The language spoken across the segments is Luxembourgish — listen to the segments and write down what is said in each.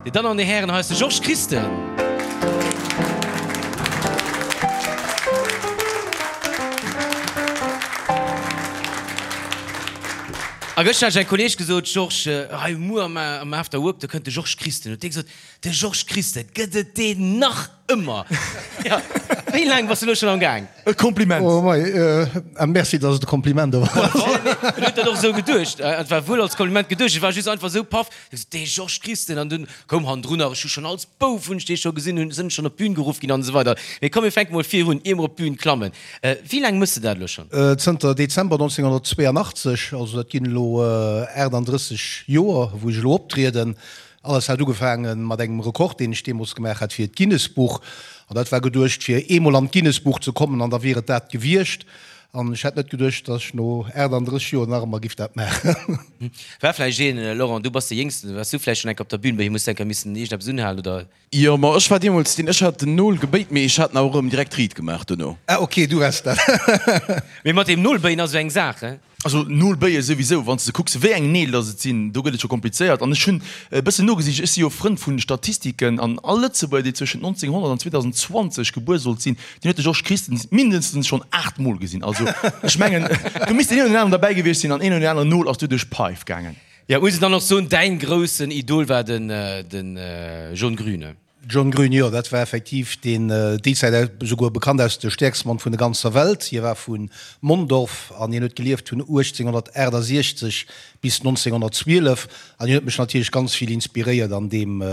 Dir Dammen an Dir Hären, hei ass de Georges Christen. A gëschter hat ech engem Kolleeg gesot, Georges, hei muer am After Work, do kënnt de Georges Christen. Huet dee gesot, De Georges Christen, gëtt et deen nach ëmmer? Jo, wéi laang bass du elo schonn am Gaang? E Kompliment. Oh mei, a merci, dass et e Kompliment awer ass. En huet dat och esou geduecht. Et war wuel als Kompliment geduecht, et war just einfach esou paff. Ech sot, Dee Georges Christen! An dunn koum hannendrun nach, ech hu schonn als Bouf hunn ech dee scho gesinn, hunn, sinn schonn op d'Bün geruff ginn an esou weider. Mee komm, mir fänke mol vir un, ier mer op d'Bün klammen. Wéi laang méchs de dat elo schonn? Zënter Dezember 1982, also dat ginn elo 38 Joer, wou ech elo optrieden. Alles hat ugefaange mat engem Rekord, deen ech deemools gemaach hat fir d'Guinness-Buch. An dat war geduecht, fir eemol an d'Guinness-Buch ze kommen, an da wier et dat gewiescht. An ech hätt net geduecht, dass ech no 38 Joer nach ëmmer giff dat maachen. War vläicht een, Laurent, du bass de Jéngsten, waars du vläicht schonn eng Kéier op der Bühn, bei him hues du eng Kéier missen iergendeppes unhalen, oder? Jo, ma ech war deemools deen, ech hat den Nol gebéit, mee ech hat en awer erëm direkt riit gemaach dono. Ah ok, du waars dat. Mee mat deem Nolbéien ass esou eng Saach, he? Also Nolbéie souwisou, wann s de kucks wéi eng Neel dass et sinn, do gëtt et scho komplizéiert. An ech hunn e bëssen nogesicht, ech si jo Frënd vu Statistiken, an all Lëtzebuerger, dee zwëschent 1900 an 2020 gebuer sollt sinn, deen huet de Georges Christen mindestens schonn 8 Mol gesinn. Also ech mengen, do misst deen een oder deen aneren derbäi gewiescht sinn an een oder deen aneren Nol ass doduerch d'Paif gaangen. Jo, muss een dann och soen, däin groussen Idol war den John Grün. John Grün, Jo, dat war effektiv deen déi Zäit esouguer bekannt aus de stäerkste Mann vun der ganzer Welt. Hie war vu Mondorf an hien huet gelieft vun 1868 bis 1912 an hien huet mech natierlech ganz vill inspiréiert an deem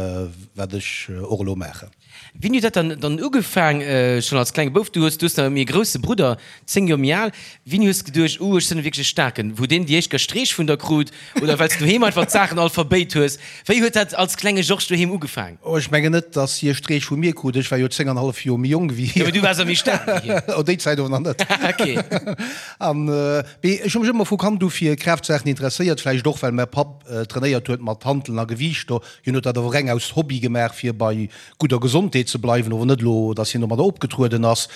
wat ech och elo maachen. Wéini huet dat dann dann ugefaang, schonn als klenge Bouf? Du hues du hues nach e méi grousse Brudder, 10 Joer méi al. Wéini hues de geduecht, Uh, ech sinn wierklech e Staarken? Wou deen déi éischt Gestreech vun der krut oder well s du doheem einfach d'Saachen all verbéit hues? Wéi huet dat als klenge Georges doheem ugefaang? Oh, ech mengen net, dass hie Streech vu mir krut. Ech war jo 10 an hallef Joer méi jonk wéi hien. Jo, mee du waars och méi staark wéi hien. Oh, déi Zäit awer nach net. Ok. An, mee ech hu mech ëmmer vu Kand u fir Kraaftsachen interesséiert, vläicht och, well mäi Papp trainéiert huet mat Hanteln a Gewiichter. Hien huet dat awer reng aus Hobby gemaach, fir bei gudder Gesondheet ze bleiwen, ower net elo, dass hien domadder opgetrueden ass.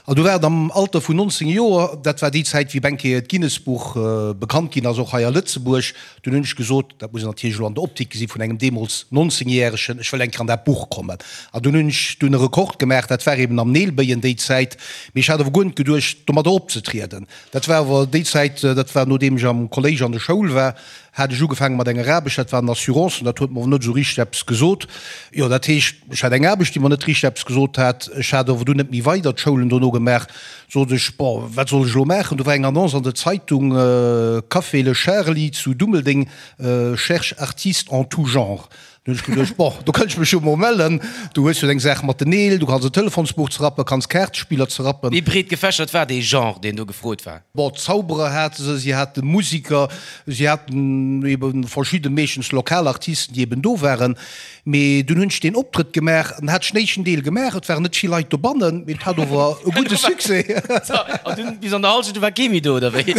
An du war et am Alter vun 19 Joer, dat war déi Zäit, wéi Benke d'Guinness-Buch bekannt ginn ass, och hei a Lëtzebuerg. Dunn hunn ech gesot, dat muss een natierlech elo an der Optik gesi vun engem deemools 19 Järegen, ech wëll eng Kéier an dat Buch kommen. An dunn hunn ech dunn e Rekord gemaach, dat war eben am Neelbéien déi Zäit. Mee ech hat awer guer net geduecht, domadder opzetrieden. Dat war awer déi Zäit, dat war nodeem ech am Kolléisch an der Schoul war, hat ech ugefaange mat enger Aarbecht, dat waren Assurancen, dat huet mer awer net esou richteg eppes gesot. Jo, dat heescht, ech hat eng Aarbecht, déi mer net richteg eppes gesot hat. Ech hat awer dunn net méi weider d'Schoulen dono gemaach. Sot ech, bon, wat soll ech elo maachen? Do war eng Annonce an der Zeitung, Café Le Charly zu Dummeldeng cherche artiste en tout genre. Dunn hunn ech geduecht, bon, do kënnt ech mech jo mol mellen. Du hues jo deng Saach mat den Neel, du kanns e Telefonsbuch zerrappen, kanns Kaartespiller zerrappen. Wéi breet gefächert war dee Genre, deen do gefrot war? Bon, Zauberer hate se, si hate Musiker, si haten ebe verschidde, meeschtens lokal Artisten, déi eben do waren. Mee dunn hunn ech deen Optrëtt gemaach an hat ech den éischten Deel gemaach. Et waren net vill Leit dobannen, mee et hat ower e gudde Succès. An dunn bis an der Hallschent, du war kee méi do, oder wéi?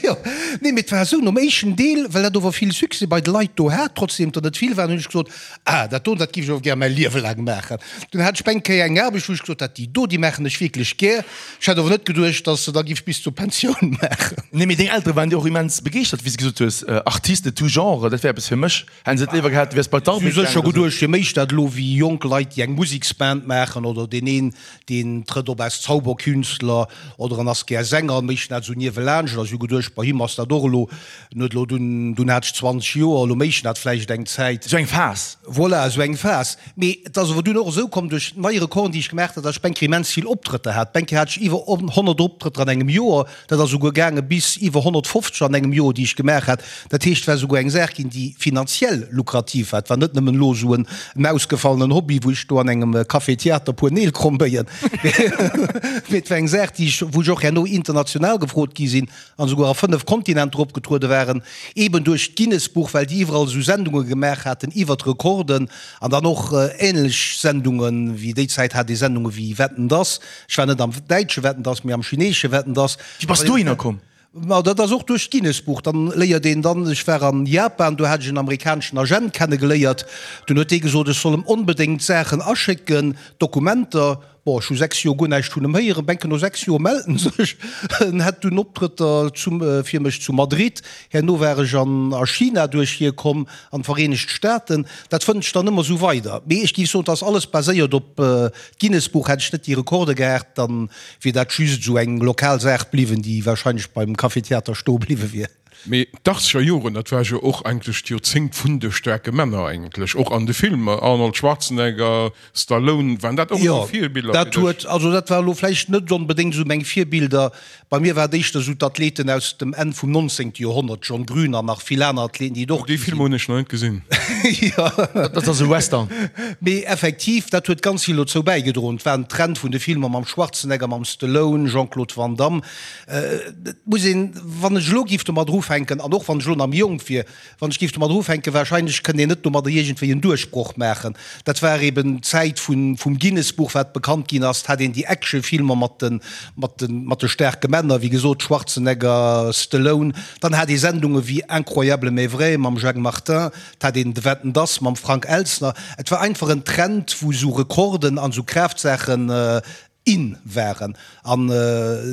Jo, nee, mee et war esou, nom éischten Deel, well dat ower vill Succès bei de Leit do hat, trotzdem der net vill waren, hunn ech gesot, Ah, dat do, dat giff ech ower gär mäi Liewe laang maachen. Dunn hat ech eng Kéier eng Aarbecht, wou ech gesot hat, déi do, déi maachen ech wierklech gär. Ech hat ower net geduecht, dass se da giff bis zur Pensioun maachen. Nee, mee deng Eltere waren jo och immens begeeschtert, wéi s de gesot hues, Artiste de tout genre, dat wär eppes fir mech. Hätten se et léiwer gehat, du wäers bei d'Armée gaangen oder sou? Sécher geduecht, fir méich dat elo wéi jonk Leit, déi eng Museksband maachen oder deen een, deen trëtt op als Zauberkünstler oder en ass gär Sänger, mécht dat esou niewelaanscht. A si hu geduecht, bei him ass dat och elo, en huet elo dunn, dunn hat ech 20 Joer, elo mécht en dat vläicht eng Zäit. Esou eng Phas. Voilà, esou eng Phas. Mee et ass awer dunn och esou komm, duerch nei Rekorden, déi ech gemaach hat, datt ech bengkéier immens vill Optrëtter hat. Bengkéier hat ech iwwer 100 Optrëtter an engem Joer. Dat ass esouguer gaange bis iwwer 150 an engem Joer, déi ech gemaach hat. Dat heescht, et war esouguer eng Saach ginn, déi finanziell lukrativ war. Et war net nëmmen elo esou en ausgefallenen Hobby, wou ech do an engem Café-Theater e puer Neel kromm béien, mee et war eng Saach, déi ech, wou ech och herno international gefrot gi sinn an esouguer a 5 Kontinenter opgetruede waren, eeben duerch d'Guinness-Buch, well déi iwwerall esou Sendunge gemaach haten iwwert Rekorden an dann och änlech Sendungen, wéi déi Zäit hat ee Sendunge wéi Wetten, dass. Ech war net am däitsche Wetten, dass, mee am chineesche Wetten, dass. Wéi bass dohinner komm? Ma dat ass och duerch d'Guinness-Buch. Dann léiert een dann, ech war an Japan, do hat ech en amerikaneschen Agent kennegeléiert. Dunn huet dee gesot, ech soll em onbedéngt Saachen aschécken, Dokumenter. Bon, ech hu 6 Joer guer näischt vun em héieren. Benke no 6 Joer mellt en sech. En hätt dunn Optrëtter zum, fir mech zu Madrid. Herno war ech an a China duerch hie komm, an d'Vereenegt Staaten. Dat fënnt ech dann ëmmer esou weider. Mee ech géif soen, et ass alles baséiert op d'Guinness-Buch. Hätt ech net déi Rekorde gehat, dann wier dat just esou eng lokal Saach bliwwen, déi wahrscheinlech beim Café Theater stoe bliwwe wier. Mee d'Achtzeger Joren, dat war jo och eigentlech d'Joerzéngt vun de staarke Männer eigentlech, och an de Filmer, Arnold Schwarzenegger, Stallone, waren dat och esou Virbiller fir dech? Jo, dat huet, also dat war elo vläicht net onbedéngt esou meng Virbilder. Bei mir war et éischter esou d'Athleten aus dem Enn vum 19. Joerhonnert, John Grün an nach vill aner Athleten, déi et och Déi gi Filmer sinn. hunn ech nach net gesinn. Jo. Dat ass e Western. Mee effektiv, dat huet ganz vill dozou bäigedroen. Et war en Trend vun de Filmer mam Schwarzenegger, mam Stallone, Jean-Claude Van Damme. Et muss een, wann ech elo géif domadder ufänken, an och wann ech elo nach méi jonk wier, wann ech géif domadder ufänken, wahrscheinlech kënnt een net domadder iergendwéi en Duerchbroch maachen. Dat war eben d'Zäit vun, vum Guinness-Buch, wat bekannt ginn ass. Et hat een déi Actionfilmer mat de, mat de, mat de staarke Männer, wéi gesot, Schwarzenegger, Stallone. Dann hat ee Sendunge wéi Incroyable mais vrai mam Jacques Martin, et hat een de Wetten, dass mam Frank Elstner. Et war einfach en Trend, wou esou Rekorden an esou Kraaftsachen in waren. An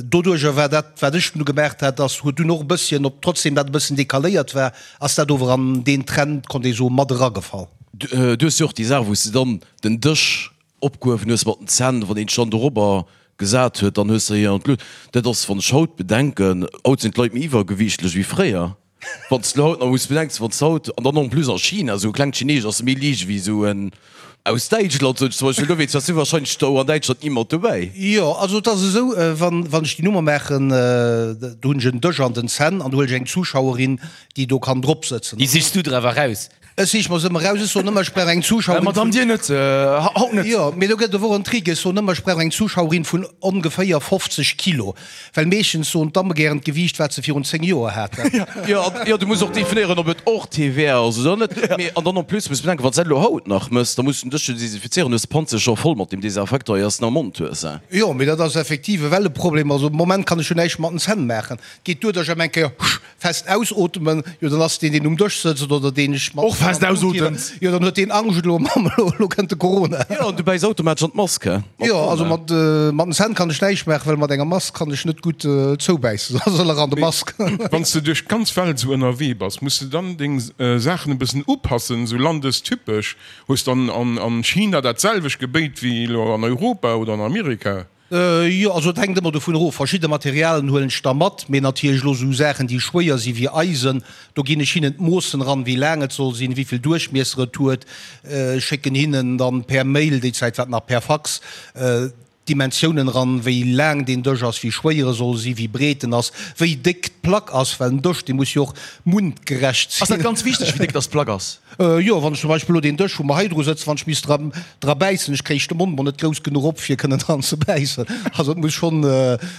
doduerjer war dat, wat ech dunn gemaach hat, ass, huet dunn och e bësschen, ob trotzdem dat e bëssen decaléiert war, ass dat ower an deen Trend, konnt ee soen, mat eragefall. Du hues jo och déi Saach, wou s de dann den Dësch opgehuewen hues mat den Zänn, wann een dech dann dorobber gesat huet, dann hues de hien an d'Luucht. Dat ass, wann ech haut bedenken, haut sinn d'Leit méi iwwergewiichtlech wéi fréier. Wann s de haut nach muss bedenks, wann s haut, an dann en plus a China, esou e klengt Chineesch ass méi liicht ewéi esou en aus Däitschland, sot ech zum Beispill, dowéinst waars du wahrscheinlech do an Däitschland ni mat dobäi. Jo, also et ass esou, wann, wann ech déi Nummer maachen, do hunn ech en Dësch an den Zänn an do huelen ech eng Zuschauerin, déi do kann drop sëtzen. Déi sichs du der awer raus? Ech sich mer se ëmmer raus. Ech soen ëmmer, ech brauch eng Zuschauerin vun. Madame, Dir net, haut net. Jo, mee do gëtt et awer och en Trick. Ech soen ëmmer, ech brauch eng Zuschauerin vun ongeféier 50 Kilo, well meeschtens soen d'Damme gären d'Gewiicht, wat se virun 10 Joer haten. Jo, jo, du muss och definéieren, ob et och TVA ass oder net. Mee, an dann en plus muss bedenken, wann s de dat elo haut nach mëss, da muss du den Dësch jo desinfizéieren, du hues d'Panze scho voll mat deem Desinfektor, ier s de en am Mond hues. Jo, mee dat ass effektiv ewell e Problem. Also am Moment kann ech jo näischt mat den Zänn maachen. Et geet duer, datt ech ëm eng Kéier Fest ausootmen, jo dann ass deen deen um Dësch sëtzt oder deen ech mat Och fest ausotemt. Jo dann huet deen Angscht elo, Mamm elo elo kënnt de Corona. Jo an du bäiss automatesch an d'Mask, he? Mat Jo also mat mat den Zänn kann ech näischt maachen, well mat enger Mask kann ech net gutt zoubäissen, da soll er an de Mask. Wann s de duerch d'ganz Welt esou ënnerwee bass, muss de dann deng Saachen e bëssen upassen, esou landestypesch? Hues dann an China dat selwecht Gebéit wéi elo an Europa oder an Amerika? Jo, also et hänkt ëmmer dovun erof. Verschidde Materialen huelen ech da mat, mee natierlech elo esou Saachen, déi schwéier si wéi Eisen, do ginn ech hinnen d'Moossen eran, wéi laang et soll sinn, wéi vill Duerchmiesser et huet, schécken hinnen dann per Mail, déi Zäit war et nach per Fax, d'Dimensiounen eran, wéi laang deen Dësch ass, wéi schwéier e soll sinn, wéi breet en ass, wéi déck d'Plack ass, well en Dësch, dee muss jo och mundgerecht sinn. Ass dat ganz wichteg, wéi déck dass d'Plack ass? Jo, wann ech zum Beispill elo deen Dësch, wou mer hei dru sëtzen, wann ech misst dra, dra bäissen, ech kréich de Mond mol net grouss genuch op, fir kënnen dran ze bäissen. Also et muss schonn,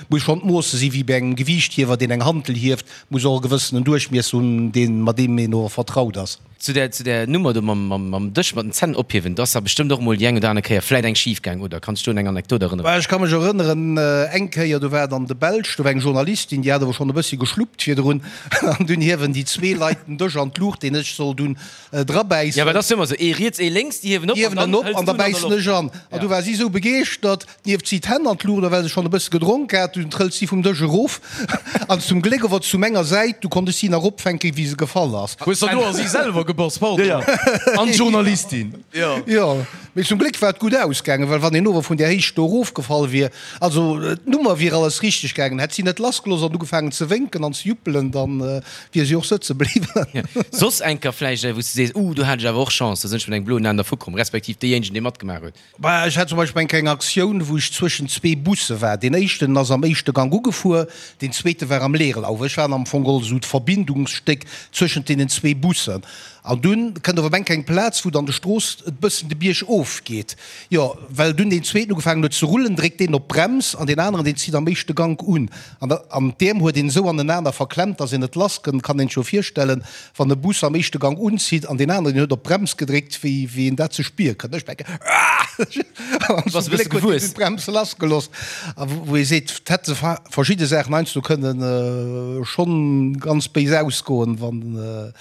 muss schonn d'Moosse si wéi bei engem Gewiichthiewer, deen eng Hantel hieft, muss och e gewëssenen Duerchmiesser hunn, deen, mat deem een och vertraut ass. Zu där, zu där Nummer do mam, mam, mam Dësch mat den Zänn ophiewen, do ass der bestëmmt och emol déi eng oder aner Kéier vläit eng schif gaang, oder? Kanns du un eng Anekdot erënneren? Ech ka mech erënneren, eng Kéier, do war et an de Belsch, do war eng Journalistin, déi hat awer schonn e bëssi geschluppt virdrun, An dunn hiewen déi zwee Leit den Dësch an d'Luucht, deen ech soll dunn drabäissen. Jo, well dat ass jo ëmmer esou, ee riets, ee lénks, déi hiewen op an dann hëls du en an der Loft. Ech an. An du war si esou begeeschtert, dunn hieft si d'Hänn an d'Luucht, a well se schonn e bësse gedronk hat, dunn trëllt si vum Dësch erof an zum Gléck ower zu menger Säit, du konnt ech si nach opfänken, wéi se gefall ass. Hues der do a si selwer gebass, pardon. Jo, jo, an d'Journalistin. Jo, mee zum Gléck war et gutt ausgaangen, well wann een ower vun där Héicht do erofgefall wier, also d'Nummer wier alles richteg gaangen, hätt si net lassgelooss an ugefaangen ze wénken an ze juppelen, dann wier si och sëtze bliwwen. Soss enker vläicht wou s de sees, uh, do hat ech awer och Chance, do sinn ech mat engem bloen Aen dervu komm, respektiv deejéinegen, dee matgemaach huet. Bah, ech hat zum Beispill eng kleng Aktioun, wou ech zwëschen zwee Busse war. Deen éischten ass am éischte Gank ugefuer, deen zweete war am Leerlauf. Ech war am Fong geholl esou d'Verbindungsstéck zwëschent deenen zwee Bussen. An dunn kënnt op eng eng Plaz, wou dann de Strooss e bëssen de Bierg of geet. Jo, well dunn deen zweeten ugefaangen huet ze rullen, dréckt deen op d'Brems an deen aneren, deen zitt am éischte Gank un. An da, an d'Äerm huet een esou anenaner verklemmt, dass een net lass kënnt. Kann een sech jo virstellen, wann e Bus am éischte Gank unzitt an deen aneren, deen huet op d'Brems gedréckt, wéi, wéi een dat ze spiere kënnt. Ech denken, Aah! An zum Gléck huet deen dunn d'Brems lassgelooss. A wou ee seet, 't hätte verschidde Saachen heiansdo kënnen schonn ganz béis ausgoen, wann,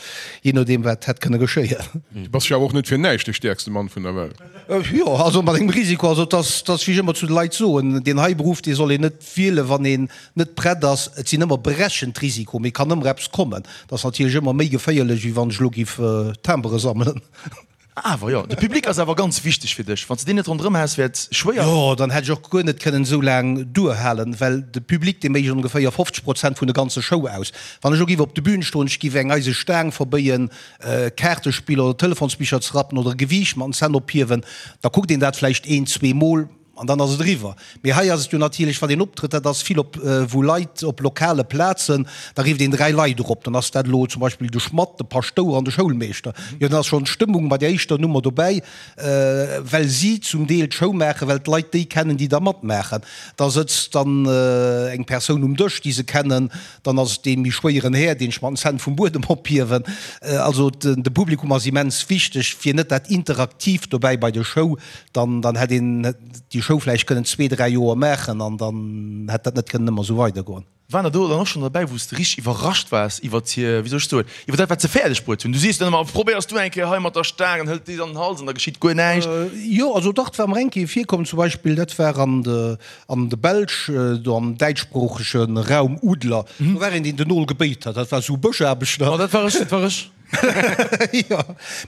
Jee nodeem wat hätt kënne geschéien. Du bass jo awer och net fir näischt de stäerkste Mann vun der Welt. Jo, also mat engem Risiko. Also et ass, et ass wéi ech ëmmer zu de Leit soen, deen hei Beruff, dee soll een net wielen, wann een net prett ass. Et sinn ëmmer berechent Risiko, mee kann ëmmer eppes kommen. Et ass natierlech ëmmer méi geféierlech, wéi wann ech elo giff Timbere sammelen. Awer jo, de Public ass awer ganz wichteg fir dech. Wann s de deen net ronderëm häss, wär et schwéier. Jo, dann hätt ech och guer net kënnen esou laang duerhalen, well de Public, dee mécht ongeféier 50 Prozent vun der ganze Show aus. Wann ech elo giff op de Bühn stoen, ech giff eng eise Staang verbéien, Kaartespiller oder Telefonsbicher ze rappen oder e Gewiicht mat den Zänn ophiewen, da kuckt een dat vläicht een, zweemol an dann ass et eriwwer. Mee hei ass et jo natierlech, wann een optrëtt, dat ass vill op wou Leit op lokale Plazen, da rifft een 3 Leit erop, dann ass dat elo zum Beispill de Schmadd, de Paschtouer an de Schoulmeeschter. Jo, dann ass schonn d'Stëmmung bei der éischter Nummer dobäi, well si zum Deel d'Show maachen, well d'Leit déi kennen, déi da matmaachen. Da sëtzt dann eng Persoun um Dësch, déi se kennen, Dann ass et dee méi schwéieren Här, deen ech mat den Zänn vum Buedem ophiewen. Also de Publikum ass immens wichteg, fir net dat Interaktiivt dobäi bei der Show. Dann dann hätt een déi Show vläicht kënnen zwee, dräi Joer maachen an dann hätt dat net kënnen ëmmer esou weidergoen. Waren der do dann och schonn derbäi, wou s de richteg iwwerrascht waars iwwert hir, wéi soll ech soen, iwwer dat, wat se fäerdeg bruet hunn? Du sees dann ëmmer, Probéiers du eng Kéier hei mat der Staang an hëlt déi an den Hals an da geschitt guer näischt. Jo, also dach, et war mer eng Kéier virkomm, zum Beispill, dat war an de An de Belsch, do am däitschsproochege Raum Udler, do war een, deen den Nol gebéit hat. Dat war esou Bëschaarbechter. Oh, dat war ech, dat war ech. Jo,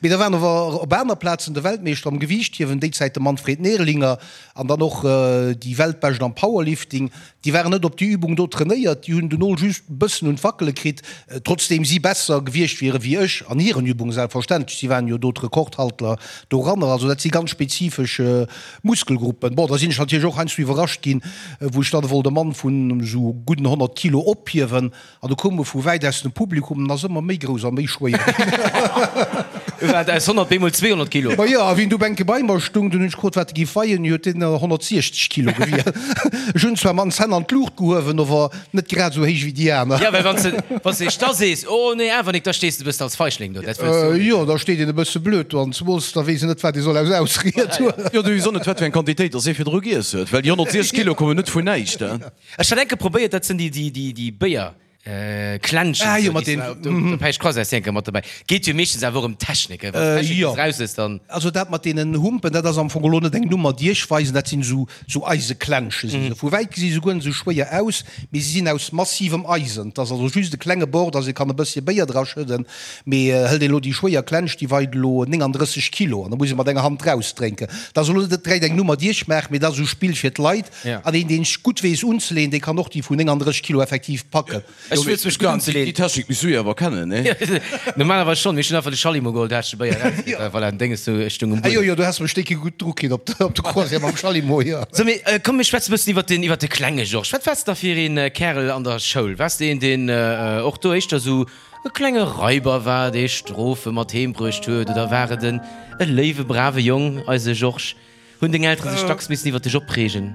mee da waren awer op aner Plazen de Weltmeeschter am Gewiichthiewen, déi Zäit de Manfred Nerlinger, an dann och déi Weltbescht am Powerlifting. Déi waren net op déi Übung do trainéiert, déi hunn den Nol just e bëssen un d'Wackele kritt, trotzdeem si besser gewiescht wiere wéi ech an hiren Übungen, selbstverständlech. Si waren jo do d'Rekordhalter doranner. Also dat si ganz spezifesch Muskelgruppen. Bon, da sinn ech natierlech och heiansdo iwwerrascht ginn, wou ech dann wollt e Mann vun esou gudden 100 Kilo ophiewen an du koum e vu wäit aus dem Publikum an ass ëmmer méi grouss a méi schwéier ginn. War et aus 100 bemol 200 Kilo? Ma jo, a wéi en du bänke bei mer stung, dunn hunn ech gefrot, wat e géif weien, huet deen 160 Kilo gewien. Ech hunn zwar mat den Zänn an d'Luucht gehuewen, ower Net grad esou héich wéi déi aner. Jo, well wann s de, wann s de da sees, oh nee, awer nik, da stees de e bëssen als Feigling do. Dat wëlls du och net. Jo, da steet een e bësse blöd do an zemools da weess een net, wat ee soll aus Ausried huelen. Jo, du weess och net, wat fir eng Quantitéit dass ee virdru giess huet, well déi 160 Kilo kommen net vun näischt. Ech hat enke probéiert, dat sinn déi, déi, déi, déi Béier. Klenschen, Ah jo, mat den. Do Päisch Croisette si enke mat dobäi. Geet jo meeschtens awer och ëm d'Technik, wann d'Technik Jo. bis raus ass, dann. Also dat mat deenen Humpen, dat ass am Fong elo net eng Nummer, déi ech weisen, dat sinn esou Sou Eiseklensche si se. Vu wäit gesi se guer net esou schwéier aus, mee si sinn aus massivem Eisen. Et ass also just e klenge Bord, dass ee kann e bësschen Béier dra schëdden. Mee hëlt een elo déi schwéier Klensch, déi weit elo 39 Kilo an da muss ee mat enger Hand rausdrénken. Dat ass elo net direkt eng Nummer, déi ech maachen, mee dat ass esou Spill fir d'Leit. An een, deen gutt weess unzeleeën, dee kann och déi vun 39 Kilo effektiv packen. Ech wëlls mech gutt unzeleen. Déi Technik misst du jo awer kennen, nee? Normalerweis schonn, mee ech hunn einfach de Schallimo geholl, da hat ech de Béier erausgekritt. Voilà, den Dénges do, ech stung um Ah jo, jo, du has mech décke gutt dru kritt op de Croisière mam Schallimo, jo. So, mee komm, mir schwätzen e bëssen iwwer den, iwwer de klenge Georges. Wat waars de da fir een Kärel an der Schoul? Waars de een, deen och do éischter esou e klenge Raiber war, dee Strofe mat heem bruecht huet, oder war et en e léiwe, brave Jong, eise Georges? Hunn deng Eltere sech dacks missen iwwer dech opreegen?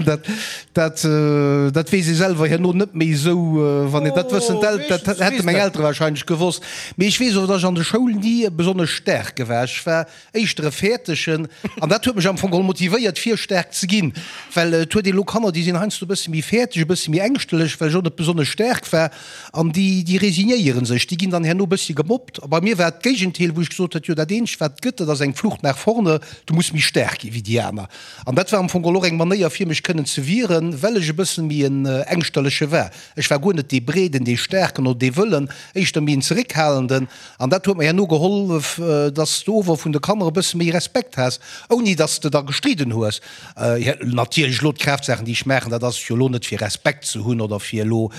Dat, dat weess ee selwer herno net méi esou, wann een dat wëssen. Dat hätte meng Eltere warscheinlech gewosst. Mee ech weess och, datt ech an der Schoul ni besonnesch staarke war. Ech war éischter e Fäertegen an dat huet mech am Fong geholl motivéiert, fir staark ze ginn. Well et huet een elo Kanner, déi sinn heiansdo e bësse méi fäerteg, e bësse méi ängschtelech, well ech och net besonnesch staark war. An déi, déi resignéiere sech, déi ginn dann herno e bëssche gemobbt. A bei mir war et d'Géigenteil, wou ech gesot huet, jo dat eenzegt wat et gëtt, dat ass eng Flucht nach vorne, du muss méi staark gi wéi déi aner. An dat war am Fong och eng Manéier fir mech kënnen ze wieren, well ech e bëssen méi en Ängschterleche war. Ech war guer net dee Breeden, dee Staarken oder dee Wëllen, éischter méi en Zeréckhalenden. An dat huet mer herno gehollef, dass s de ower vun de Kanner e bësse méi Respekt has, ouni dass s de da gestridden hues. Natierlech elo d'Kraaftsachen, déi ech maachen, dat ass jo elo net fir Respekt ze hunn oder fir elo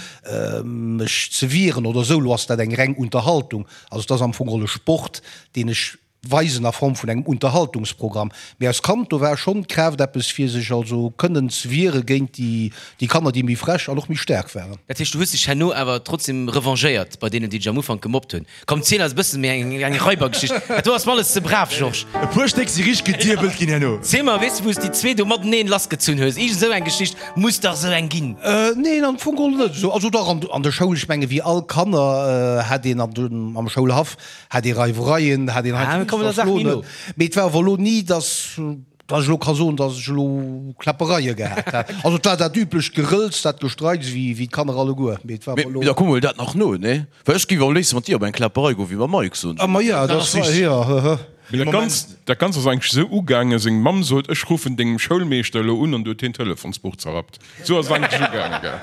mech ze wieren oder esou. Elo ass dat eng reng Unterhaltung. Also et ass am Fong geholl e Sport, deen ech weisen a Form vun engem Unterhaltungsprogramm. Mee als Kand, do war schonn d'Kraaft eppes fir sech also kënnen ze wiere géint déi Kanner, déi méi frech an och méi staark waren. Dat heescht, du hues dech herno awer trotzdem revanchéiert bei deenen, déi dech am Ufank gemobbt hunn? Komm ziel eis e bëssen méi eng eng Raibergeschicht. Dat do ass mer alles ze brav, Georges. E puer Stéck si richteg gediebelt ginn herno. Ziel mer, weess de wou s déi zwee do mateneen lassgezunn hues? Iergend esou eng Geschicht muss dach esou eng ginn. Neen, am Fong geholl net esou. Also dach, an der Schoul, ech menge wéi all Kanner hat een an dem am Schoulhaff hat ee Reiwereien, hat een heiansdo Ah, kommen der Saach méi no. Mee et war awer elo ni, dass. Dass ech elo ka soen, dass ech elo Kläppereie gehat hätt. Also et war dat üblecht Gerëlz, dat Gestreits, wéi wéi d'Kanner alleguer. Mee et war awer elo. Mee da kuck mol dat nach no, nee? Well ech géif am léifste mat dir op eng Kläpperei goen, wéi mam Mike, soen ech. Ah ma ja, dat ass richtig, jo, hë. Mee dat Ganzt, dat Ganzt ass eigentlech esou ugaangen, seng Mamm sot, ech ruffen dengem Schoulmeeschter elo un, an du huet hien d'Telefonsbuch zerrappt. Esou ass et eigentlech ugaangen, gell?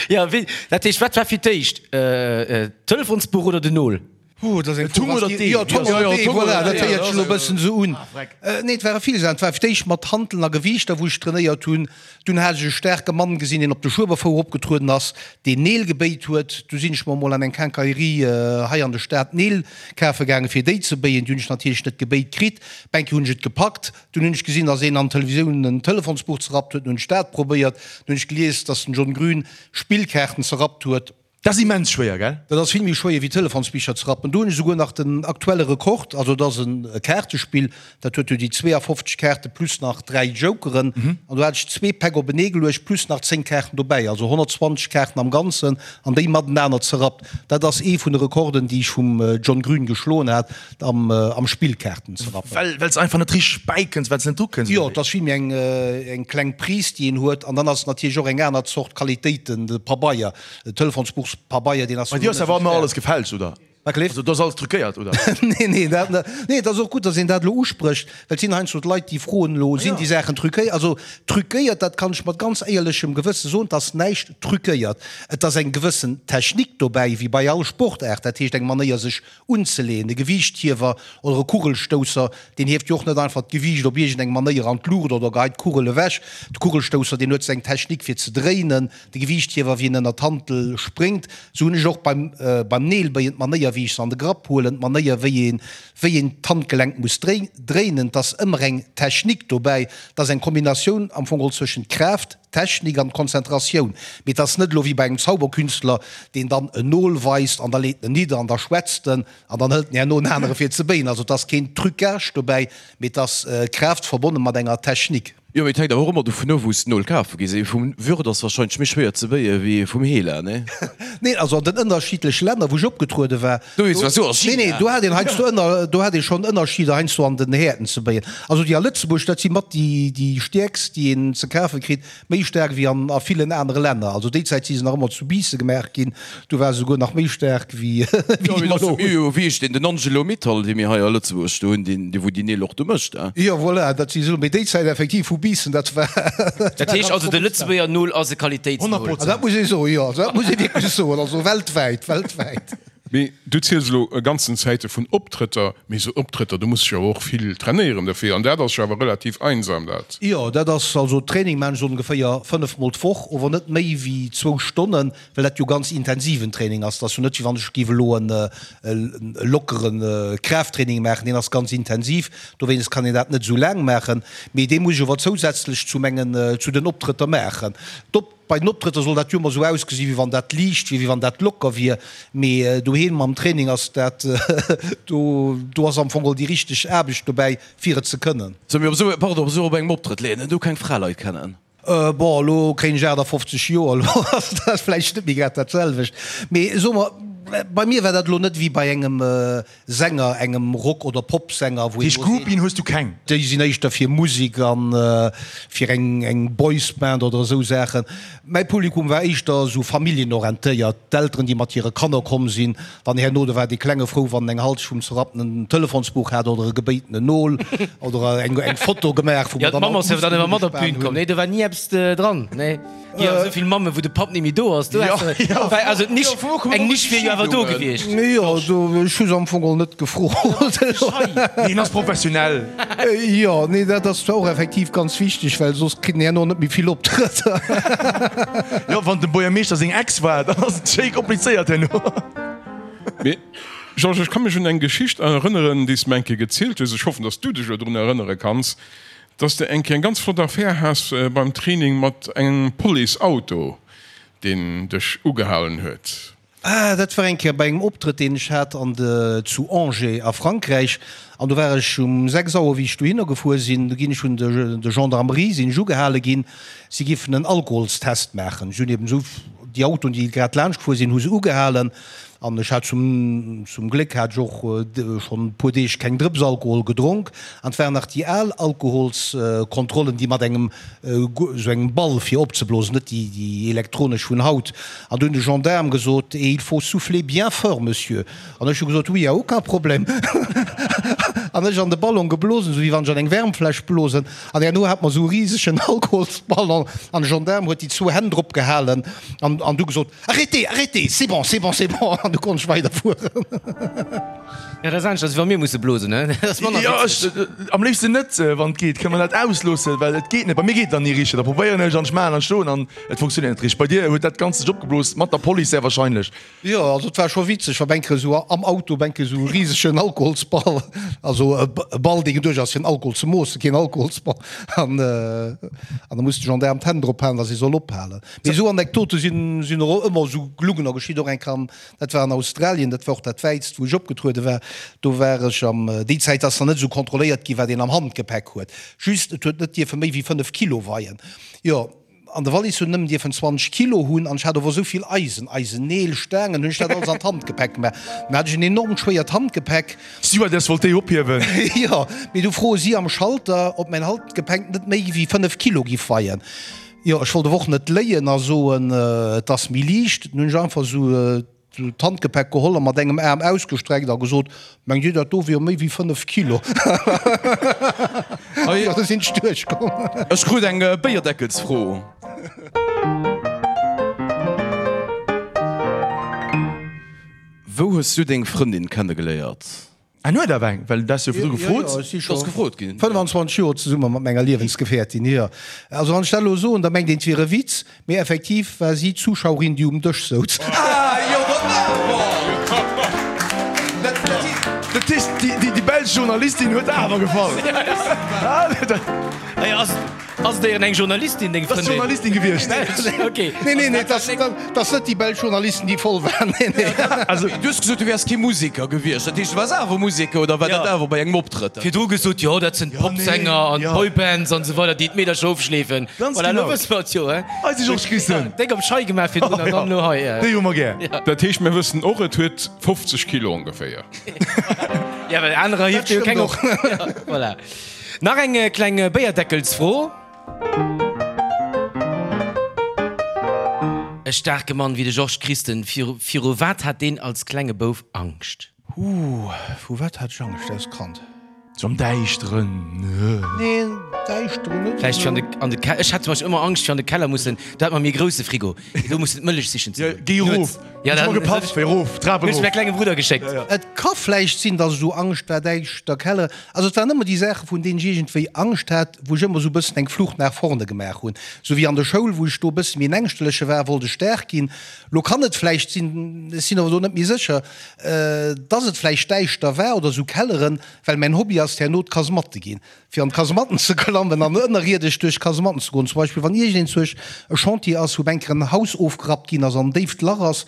Jo, wéi, dat heescht, wat war fir d'éischt, d'Telefonsbuch oder den Nol? Oh, dat ass eng Fro, was déi. Jo, Tom oder Dee, voilà, dat héiert sech elo e bëssen esou un. Nee, et ware vill Saachen. Et war fir d'éischt mat Hanteln a Gewiichter, wou ech trainéiert hunn. Dunn hat ech e staarke Mann gesinn, deen op de Schueberfouer opgetrueden ass, deen Neel gebéit huet. Du sinn ech mer emol an eng Quincaillerie hei an der Stad Neel kafe gaangen, fir déi ze béien. Déi hunn ech natierlech net gebéit kritt. Eng Kéier hunn ech et gepackt. Dunn hunn ech gesinn, dass een an Televisioun en Telefonsbuch zerrappt huet. Dunn hunn ech dat probéiert. Dunn hunn ech gelies, dass den John Grün Spillkaarten zerrappt huet. Dat ass immens schwéier, gell? Dat ass vill méi schwéier wéi Telefonsbicher ze rappen. Do hunn ech esouguer nach den aktuelle Rekord. Also et ass e Kaartespill, dat huet jo déi 52 Kaarte plus nach 3 Jokeren. An do hat ech zwee Päck openee geluecht plus nach 10 Kaarten dobäi, also 120 Kaarten am Ganzen an déi matenaner zerrappt. Dat ass ee vun de Rekorden, déi ech vum John Grün geschloen hat am am Spillkaarten zerrappen. Well well s einfach net richteg bäikënns, well s net drukënns, oder Jo, et ass vill méi eng eng kleng Prise, déi een huet. An dann ass et natierlech och eng aner Zort Qualitéit, de Pabeier. Den Telefonsbuchspabeier, deen ass Bei dir ass awer ëmmer alles gefälscht, oder? Wat gleeft? Also do ass alles truquéiert, oder? Nee, nee, dat net. Nee, et ass och gutt, datt een dat elo usprécht, well et sinn heiansdo d'Leit, déi froen elo, Sinn déi Saachen truquéiert? Also truquéiert, dat kann ech mat ganz éierlechem Gewësse soen, et ass näischt truquéiert. Et ass eng gewëssen Technik dobäi, wéi bei all Sportaart, dat heescht eng Manéier sech unzeleeën. E Gewiichthiewer oder e Kugelstousser, deen hieft jo och net einfach d'Gewiicht op iergendeng Manéier an d'Luucht oder geheit d'Kugel ewech. De Kugelstousser, deen huet seng Technik fir ze dréinen. De Gewiichthiewer, wéi en ënner d'Hantel spréngt, sou hunn ech och beim beim Neelbéien d'Manéier, wéi ech se an de Grapp huelen, d'Manéier, wéi een wéi een d'Handgelenk muss dréinen. 't ass ëmmer eng Technik dobäi, 't ass eng Kombinatioun am Fong geholl zwëschent Kraaft, Technik an Konzentratioun. Mee 't ass net elo wéi bei engem Zauberkünstler, deen dann en Nol weist an da leet en nidder an da schwätzt en an dann hëlt en herno en anere fir ze béien. Also 't ass keen Trucage dobäi, mee 't ass Kraaft verbonne mat enger Technik. Jo, mee et hänkt awer och ëmmer dovun of, wou s de d'Nol kafe gees. Ee vum Würth ass wahrscheinlech méi schwéier ze béie wéi ee vum Hela, nee? Neen, also an den ënnerschiddleche Länner, wou ech opgetruede war, Do is was, jo, a China. Nee, nee, do hat een heiansdo ënner, do hat ee schonn Ënnerscheeder heiansdo an den Häerten ze béien. Also déi a Lëtzebuerg, dat si mat déi, déi stäerkst, déi een ze kafe kritt. Méi staark wéi an a villen anere Länner. Also déi Zäit si se nach ëmmer zu Biissen gemaach ginn, do war se souguer nach méi staark wéi déi mer elo hunn. Jo, wéi heescht deen, den Angelo Mittal, dee mir hei a Lëtzebuerg do hunn, deen, dee wou déi Neel och do mécht, eh? Jo, voilà, dat si se elo. Mee déi Zäit effektiv vu Biissen, dat war. Dat heescht also, de Lëtzebuerger Nol ass e Qualitéitsnol? Dat muss ee soen, jo, dat muss ee wierklech soen, also weltwäit, weltwäit. Mee du ziels elo e ganzen Zäite vun Optrëtter, mee esou Optrëtter, do muss ech awer och vill trainéieren dofir, an dat ass jo awer relativ einsam dat. Jo, dat ass also Training maan ech ongeféier 5 mol d'Woch, ower net méi wéi zwou Stonnen, well dat jo ganz intensiven Training ass. Dat ass jo net wéi wann ech géif elo e lockere Kraafttraining maachen, deen ass ganz intensiv, dowéinst kann een dat net esou laang maachen, mee dee muss ech ower zousätzlech zu mengen, zu den Optrëtter maachen. D'Op. Bei den Optrëtter soll dat jo ëmmer esou ausgesi wéi wann dat liicht wier, wéi wann dat locker wier, mee doheem mam Training ass dat, do do ass am Fong geholl déi richteg Aarbecht dobäi fir et ze kënnen. Sou, mee op esou, pardon, op esou op engem Optrëtt léiert een do keng Fraleit kennen? Bon, elo kréien ech 58 Joer, elo ass dat vläicht net méi grad dat selwecht, mee soe mer, bei mir war dat elo net wéi bei engem Sänger, engem Rock oder Popsänger, wou een elo seet. Groupien hues du keng? Déi sinn éischter fir Musek an fir eng eng Boysband oder esou Saachen. Mäi Publikum war éischter esou familljenorientéiert, d'Elteren, déi mat hire Kanner komm sinn. Dann herno, do war dee Klenge frou, wann en eng Halsch vum zerrapptenen Telefonsbuch hat oder e gebéitenen Nol oder eng eng Foto gemaach, wou mer dann all d'Mamm ass jo dann ëmmer mat op d'Bün komm. Nee, do war ni eppes dran, nee. Jo, esou vill Mammen, wou de Papp net méi do ass, do häss de, well also d'Nisch, eng Nisch wier jo awer do gewiescht. Jo, do, ech hu se am Fong och net gefrot. Hien ass professionell. Jo, nee, dat ass zwar och effektiv ganz wichteg, well soss kritt en herno net méi vill Optrëtter. Jo, wann dem Buergermeeschter seng Ex war, dann ass et schéi komplizéiert herno. Mee Georges, ech ka mech un eng Geschicht erënneren, déi s de mer eng Kéier gezielt hues, ech hoffen, datt s du dech elo drun erënnere kanns, Dass de eng Kéier eng ganz flott Affär has beim Training mat engem Police-Auto, deen dech ugehalen huet. Ah, dat war eng Kéier bei engem Optrëtt, deen ech hat an de zu Angers a Frankräich. An do war ech um 6 Auer, wéi ech dohinner gefuer sinn, do ginn ech vun de de Gendarmerie sinn ech ugehale ginn, si giffen en Alkoholstest maachen. Ech hunn eben esou. déi Autoen, déi grad laanscht gefuer sinn, hu se ugehalen. An ech hat zum, zum Gléck hat ech och schonn e puer Deeg keng Drëps Alkohol gedronk. An et waren nach déi al Alkoholskontrollen, déi mat engem, esou engem Ball fir opzeblosen, net déi, déi elektronesch vun haut. An du hunn de Gendaarm gesot, Et il faut souffler bien fort, Monsieur. An ech hu gesot, Oui, y a aucun problème. An ech an de Ballon geblosen, esou wéi wann ech an eng Wärmfläsch blosen. An herno hat mer esou e risegen Alkoholsballon an de Gendaarm huet déi zwou Hänn drop gehalen an, an du gesot, Arrêtez, arrêtez, c'est bon, c'est bon, c'est bon. An du konnt ech weiderfueren. Ja, dat ass anescht, als wa mir musse blosen, ne? Dat ass manner Jo, witzeg. ech, am léifsten net, wann et geet. Kënne mer dat ausloossen? Well et geet net. Bei mir geet et dann ni richteg. Da probéieren ech an ech maachen an ech doen an et funktionéiert net richteg. Bei dir huet dat Ganzt sech opgeblos mat der Police sehr wahrscheinlech. Jo, also et war scho witzeg, wa Bänke esou am Auto Bänke esou e risegen Alkoholsball, also e Ball, dee geduecht ass fir den Alkohol ze moossen, keen Alkoholsball, an an da muss de Gendaarm d'Hänn drop halen, datt e soll ophalen. Mee esou Anekdote sinn sinn och ëmmer esou gelungener geschitt. Och eng Kéier am, dat war an Australien, dat war och dat wäitst wou ech opgetruede war, do war ech am, déi Zäit ass nach net esou kontrolléiert ginn, wat een am Handgepäck huet, just et huet net dierfe méi wéi 5 Kilo weien. Jo. An de Wallis hunn nëmmen dierfen 20 Kilo hunn an ech hat ower esou vill Eisen, Eisenneel, Staangen, hunn ech dat alles an d'Handgepäck gemaach. Dann hat ech en enormt schwéiert Handgepäck. D'Stewardess wollt déi ophiewen. Jo, mee du froe si am Schalter, ob mäin Handgepäck net méi wéi 5 Kilo giff weien. Jo, ech wollt ower och net léien a soen, et ass méi liicht. Dann hunn ech einfach esou d'Handgepäck geholl a mat engem Aarm ausgestreckt a gesot, Mengt Dir, dat do wier méi wéi 5 Kilo? Jo, do sinn ech duerchkomm. Ech krut eng Béierdeckelsfro. Wou hues du deng Frëndin kennegeléiert? En huet awer eng, well du has jo virdru gefrot. Jo, jo, ech si scho Ass gefrot ginn. 25 Joer zesumme mat menger Liewensgefährtin, jo. Also wann ech dat elo soen, da mengt een, et wier e Witz, mee effektiv war si d'Zuschauerin, déi um Dësch souz. Ah jo, dat awer! Dat heescht, déi belsch Journalistin huet awer gefall. Ass et éieren eng Journalistin, deng Frëndin? Ass Journalistin gewiescht. Okay. Nee, nee, nee, dat ass net déi belsch Journalisten, déi voll waren. Nee, nee. Also, du hues gesot, du wäers kee Museker gewiescht. Dat heescht, du waars awer Museker oder war dat awer bei engem Optrëtt? Virdru gesot, jo, dat sinn d'Popsänger an d'Boybands an esou weider, déi d'Meedercher ofschleefen. Ganz Voilà, elo genau. wësse mer et jo, he? Eise Georges Christen. Déck op d'Schei gemaach virdrun an dann elo hei. Déi hu mer gär. Dat heescht, mir wëssen och, et huet 50 Kilo ongeféier. Ja, well anerer hieft jo keng op. Voilà. Nach eng kleng Béierdeckelsfro. E staarke Mann wéi de Georges Christen, viru wat hat deen als klenge Bouf Angscht? Ooh, vu wat hat ech Angscht als Kand? Sou am Däischteren? Nee, Däischteren net Vläicht fir an de Keller. Ech hat zum Beispill ëmmer Angscht fir an de Keller mussen, do hat mer méi e grousse Frigo, do mussen d'Mëllech sichen ze goen. Géi erof! Ja, Hues mer gepafft, fir erof, d'Trap Hunn ech erof. mäi klenge Brudder geschéckt. Et ka vläicht sinn, dass ech esou Angscht war, däischter Keller. Also et waren ëmmer déi Saache vun deenen ech iergendwéi Angscht hat, wou ech ëmmer esou e bëssen eng Flucht nach vorne gemaach hunn. Esou wéi an der Schoul, wou ech do e bësse méi en Ängschterleche war, wollt ech staark ginn. Lo kann et vläicht sinn, ech sinn awer do net méi sécher, dass et vläicht däischter war oder esou Kelleren, well mäin Hobby ass herno d'Kasematte ginn, fir an d'Kasematten ze klammen an ënnerierdesch duerch d'Kasematten ze goen. Zum Beispill wann iergendeen zuech e Chantier ass, wou eng Kéier en Haus ofgerappt ginn ass an en déift Lach ass,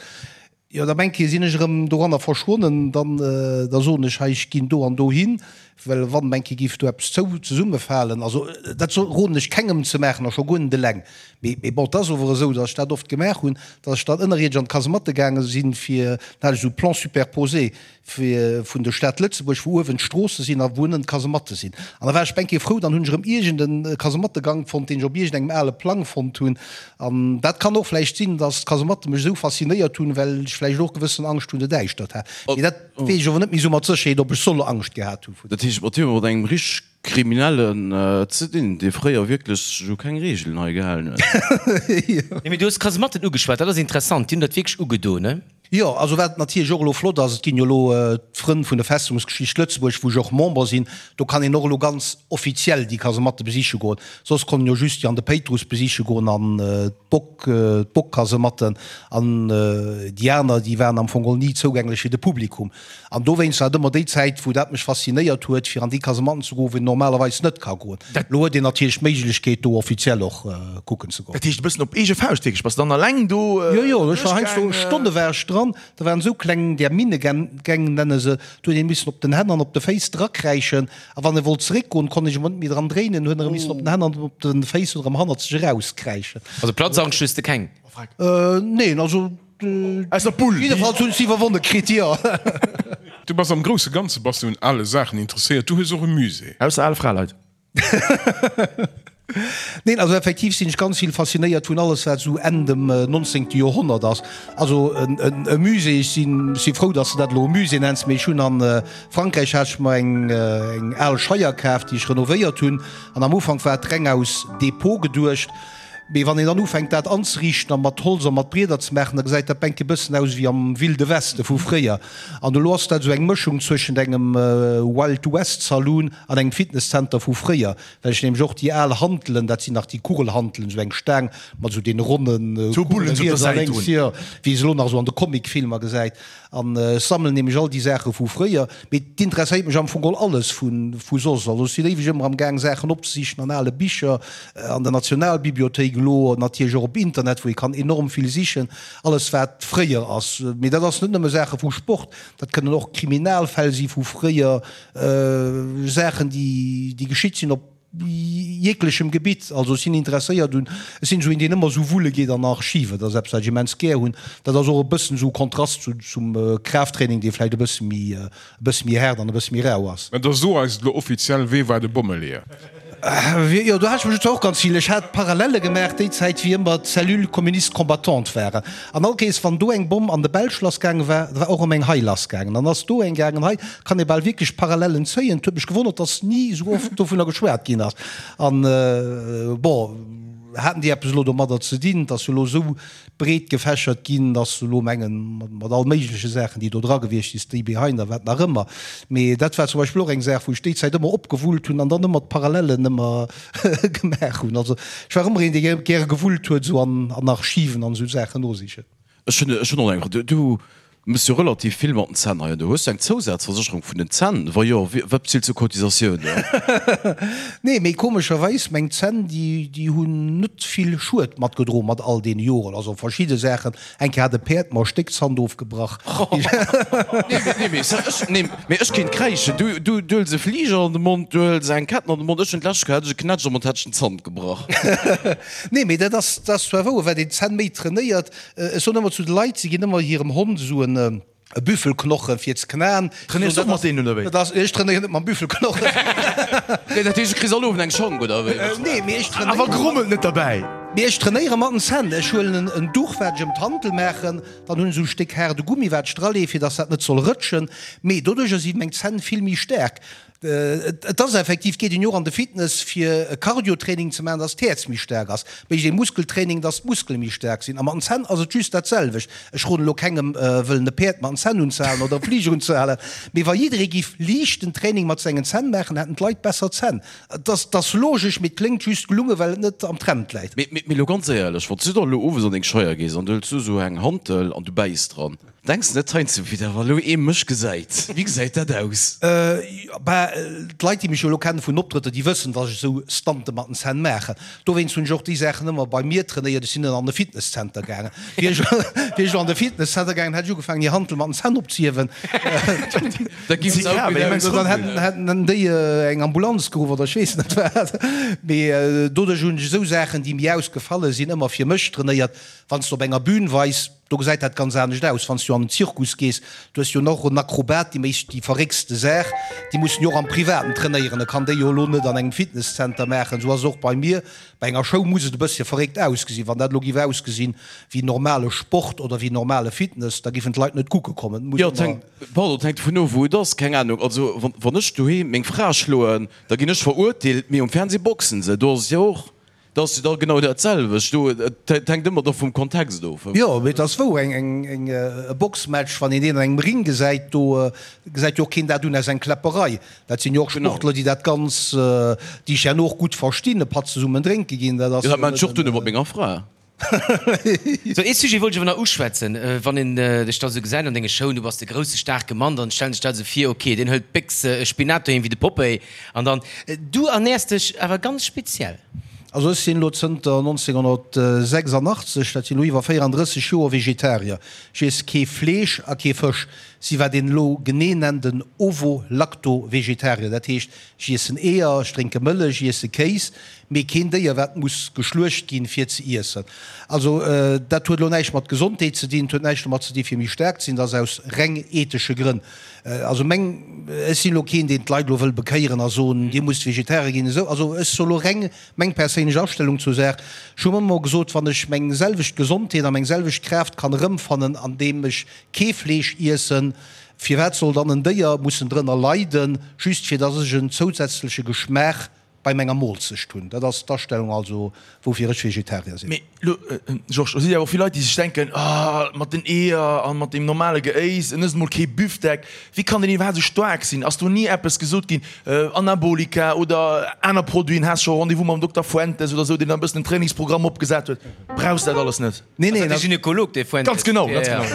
Jo, da mengt hie, sinn ech erëm doranner verschwonnen, dann, da soen ech, hei, ech ginn do an dohin, well wann, mengt hie, géif do eppes zou, zesummefalen. Also, dat soll, roden ech kengem ze maachen a scho guer net eleng. Mee, mee bon, et ass ower esou, datt ech dat oft gemaach hunn, datt ech dann ënnerierdesch an d'Kasematte gaange sinn, fir, dann hat ech esou Plans superposés, fir vun der Stad Lëtzebuerg, wou uewen d'Stroosse sinn a wou ënnen d'Kasematte sinn. An da war ech bengkéi frou, dann hunn ech erëm iergend e Kasemattegank fonnt, deen ech op iergendengem ale Plang fonnt hunn. An dat kann och vläicht sinn, dass d'Kasematte mech esou faszinéiert hunn, well ech vläicht och gewëssen Angscht vun der Däischtert hat. Mee dat weess ech ower net méi esou mat Sécherheet, ob ech soll Angscht gehat hu vun. Dat heescht, mat him mat engem richteg Kriminellen ze dinn, dee fréier wierklech sech u keng Reegelen hei gehalen huet. Nee, mee du hues d'Kasematten ugeschwat, dat ass interessant, déi hunn dat wierklech ugedoen, ne? Jo, also wat natierlech och elo flott ass, et ginn jo elo d'Frënn vun der Festungsgeschicht Lëtzebuerg, wou ech och Member sinn, do kann een och elo ganz offiziell déi Kasematte besiche goen. Soss konnt een jo just déi an de Péitruss besiche goen an d'Bock, d'Bockkasematten an déi aner, déi waren am Fong geholl ni zougänglech fir de Publikum. An dowéinst war et ëmmer déi Zäit, wou dat mech faszinéiert huet, fir an déi Kasematten ze goen, wou een normalerweis net ka goen. Elo huet een natierlech d'Méiglechkeet, do offiziell och kucken ze goen. Dat heescht e bëssen op eege Fauscht wierklech? Bass de dann alleng do Jo, jo, ech war heiansdo duerchgaangen? Stonne war ech dran. dran, da waren esou kleng, där Minnegäng nenne se, do huet een missen op den Hänn an op de Féiss drakräischen a wann e wollt zeréckgoen, konnt een sech emol net méi dran dréinen, huet en erëm missen op den Hänn an op de Féiss erëm hannerzeg erauskräischen. Also Platzangscht hues de keng? Neen, also Aus der Bull. Jiddefalls hunn ech se iwwerwonne kritt, jo. Du bass am grousse Ganze bass du un ale Saachen interesséiert. Du hues och e Musée. Ausser ale Fraleit. Neen, also effektiv sinn ech ganz vill faszinéiert vun alles wat esou Enn dem 19. Joerhonnert ass. Also e Musée, ech sinn, ech si frou, datt s de dat elo e Musée nenns, mee ech hunn a Frankräich hat ech mer eng eng al Scheier kaf, déi ech renovéiert hunn an am Ufank war et reng aus Depot geduecht. Mee wann een dann ufänkt dat anzeriichten a mat Holz a mat Brieder ze maachen, da gesäit dat bänk e bëssen aus wéi am Wilde Weste vu fréier. An elo ass dat esou eng Mëschung zwëschent engem Wild West Saloon an engem Fitnesscenter vu fréier, well ech nämlech och déi al Hantelen, dat sinn nach déi Kugelhantelen, esou eng Staang mat esou deene ronne Kugele riets a lénks, jo, wéi ee se elo nach esou an de Comic-Filmer gesäit. An ech sammelen nämlech all déi Saache vu fréier. Mee et interesséiert mech am Fong geholl alles vu soss. Also ech sinn éiweg ëmmer am Gaang Saachen opzesichen an ale Bicher, an der Nationalbibliothéik, elo natierlech och op Internet, wou ee kann enorm vill sichen, alles wat fréier ass. Mee dat ass net nëmme Saache vu Sport, dat kënnen och Kriminalfäll si vu fréier, Saachen déi geschitt sinn op jeglechem Gebitt. Also ech sinn interesséiert un, ech sinn esou een deen ëmmer esou wulle geet an Archiven, dat ass eppes wat ech immens gär hunn. Dat ass och e bëssen esou e Kontrast zu zum Kraafttraining, dee vläicht e bësse méi, e bësse méi haart an e bësse méi rau ass. Mä da so eis et elo offiziell, Wee war de Bommeleeër? Jo, do hat ech mech zwar och ganz vill, ech hat Parallele gemaach déi Zäit wéi ëmmer d'Cellule communiste combattante waren. An all Kees, wann do eng Bomm an de Belsch lassgaange war, da war och erëm eng hei lassgaangen. Dann ass do eng gaangen. Hei kann ee bal wierklech Parallellen zéien. Et huet mech gewonnert, dass ni esou oft dovunner geschwat ginn ass. An, bon, haten déi eppes elo domadder ze dinn? Et ass jo elo esou breet gefächert ginn, dass se elo mengen, mat all méigleche Saachen, déi do dra gewiescht sinn, Stay Behind a wat nach ëmmer. Mee dat war zum Beispill och eng Saach, wou ech déi Zäit ëmmer opgewullt hunn an dann ëmmer d'Parallellen ëmmer gemaach hunn. Also ech war ëmmer een, dee gäre gewullt huet esou an an Archiven an esou Saachen nosichen. Ech hunn ech hunn och eng Fro. Du du mëss jo relativ vill mat den Zänn hei an do. Hues du eng Zousazversécherung vun den Zänn? Wa jo, wat bezills du Cotisatioun? Nee, mee komescherweis, meng Zänn, déi déi hunn net vill Schued matgedroen mat all deene Joren. Also verschidde Saachen, Eng Kéier hat e Päerd mer e Stéck Zant ofgebrach. Nee, mee ech, nee, mee ech kéint kräischen. Du, du, du hëls e Fliger an de Mond, du hëls eng Ketten an de Mond. Ech hunn d'lescht Kéier hat ech e Knätsch am Mond, hat ech den Zant gebrach. Nee, mee dat ass, dat ass zwar wouer, wat een d'Zänn méi trainéiert. Ech soen ëmmer zu de Leit, si ginn ëmmer hirem Hond esou en. E Büffelknochen fir ze knaen. Trainéiers du och mat deenen oder wéi? Dat ass, ech trainéieren net mam Büffelknochen. Nee, dat heescht, du kriss all Owend eng Schank oder wéi? Nee, mee ech trainéieren. Awer grommelt net derbäi. Mee ech trainéiere mat den Zänn. Ech huelen en Duch, wat ech ëm d'Hantel maachen, dann hunn ech esou e Stéck haarde Gummi, wat ech dralee, fir dass dat net soll rëtschen. Mee doduercher si meng Zänn vill méi staark. Et ass effektiv, geet een jo och an de Fitness fir e Cardio-Training ze maachen, dass d'Häerz méi staark ass, mécht ee Muskeltraining, dass d'Muskele méi staark sinn. A mat den Zänn ass et just dat selwecht. Ech roden elo kengem wëllen e Päerd mat den Zänn unzehalen oder e Fliger unzehalen, mee wa jidderee giff liichten Training mat sengen Zänn maachen, hätten d'Leit besser Zänn. Et ass, et ass logesch, mee et kléngt just gelunge well et net am Trend läit. Mee, mee elo ganz éierlech, wann s du da elo owes an deng Scheier gees an du hëls du esou eng Hantel an du bäiss dran, Denks de net heiansdo, wéi dat wa lo ee mech gesäit, wéi gesäit dat aus? Bah, d'Leit déi mech jo elo kennen vun Optrëtter, déi wëssen, dass ech esou Stunte mat den Zänn maachen. Dowéinst hunn ech och déi Saachen ëmmer bei mir trainéiert. Ech sinn net an de Fitnesscenter gaangen. Wier ech wier ech elo an de Fitnesscenter gaangen, hätt ech ugefaangen hir Hantel mat den Zänn opzehiewen. Da giff se auch wieder aus. Dann hätten hätten déi eng Ambulanz geruff oder ech weess net wat. Mee doduerch hunn ech esou Saachen, déi mir ausgefalle sinn, ëmmer fir mech trainéiert. Wann s de op enger Bühn weis, Do gesäit dat ganz anescht aus, wann s du an den Zirkus gees. Du hues jo och en Akrobat, déi mécht déi verréckste Saach. Déi mussen jo och am Privaten trainéieren. E kann déi jo elo net an engem Fitnesszenter maachen. Esou ass et och bei mir. Bei enger Show muss et e bëssche verréckt ausgesinn. Wann dat elo géif ausgesinn wéi normale Sport oder wéi normale Fitness, da géifen d'Leit net kucke kommen. Et muss Jo, et ëmmer. hänkt, pardon, et hänkt dovun of, wou et ass. Keng Ahnung. Also, wann, wann ech doheem meng Fra schloen, da ginn ech verurteelt, mee um Fernseh boxen se. Do ass et jo och. Dat ass jo da genau dat selwecht do. Et hänkt ëmmer da vum Kontext of. Jo, mee et ass wouer, eng, eng, e Boxmatch, wann een deen an engem Ring gesäit, do gesäit jo och keen dat un aus eng Kläpperei. Dat sinn jo och Sportler, déi dat ganz, déi sech herno och gutt verstinn, e Patt zesummen drénke ginn. Dat ass jo dat maan ech och duerno mat menger Fra. Sou, ee Sujet wollt ech awer nach uschwätzen. Wann een dech da sou gesäit an denge Showen, du bass de grousse staarke Mann, dann stellen ech dat esou vir, ok, deen hëlt d'Béchs Spinat doheem wéi de Popeye an dann, du ernäers dech awer ganz speziell. Also ech sinn elo zënter 1986, dat sinn elo iwwer 34 Joer, Vegetarier. Ech iess kee Fleesch a kee Fësch. Si wat een elo genee nennt en Ovo-Lacto-Vegetarier. Dat heescht, ech iessen Eeër, ech drénke Mëllech, ech iesse Kéis, mee keen Déier wat muss geschluecht ginn fir ze iessen. Also dat huet elo näischt mat Gesondheet ze dinn, et huet näischt domat ze dinn fir méi staark ze sinn, dat ass aus reng ethesche Grënn. Also meng, ech sinn elo keen deen d'Leit elo wëll bekéieren a soen, dir musst Vegetarier ginn esou. Also ech soe elo reng meng perséinlech Astellung zur Saach. Ech hu ëmmer gesot, wann ech meng selwecht Gesondheet a meng selwecht Kraaft kann erëmfannen andeem ech kee Fleesch iessen, firwat soll dann en Déier mussen drënner leiden, just fir dass ech en zousätzleche Geschmaach bei menger Moolzecht hunn? Dat ass d'Astellung also, woufir ech Vegetarier sinn. Mee lo, Georges, do si jo awer och vill Leit, déi sech denken, Ah, mat den Eeër a mat deem normale Geéis, en ësst emol kee Büfdeck, wéi kann deen iwwerhaapt esou staark sinn? Ass do ni eppes gesot ginn, Anabolika oder aner Produiten, has scho Rendez-vous mam Dokter Fuentes oder esou, deen da e bëssen en Trainingsprogramm opgesat huet? Brauchs dat alles net? Nee, nee, dat ass de Gynekolog, dee Fuentes. Ganz genau, ganz genau.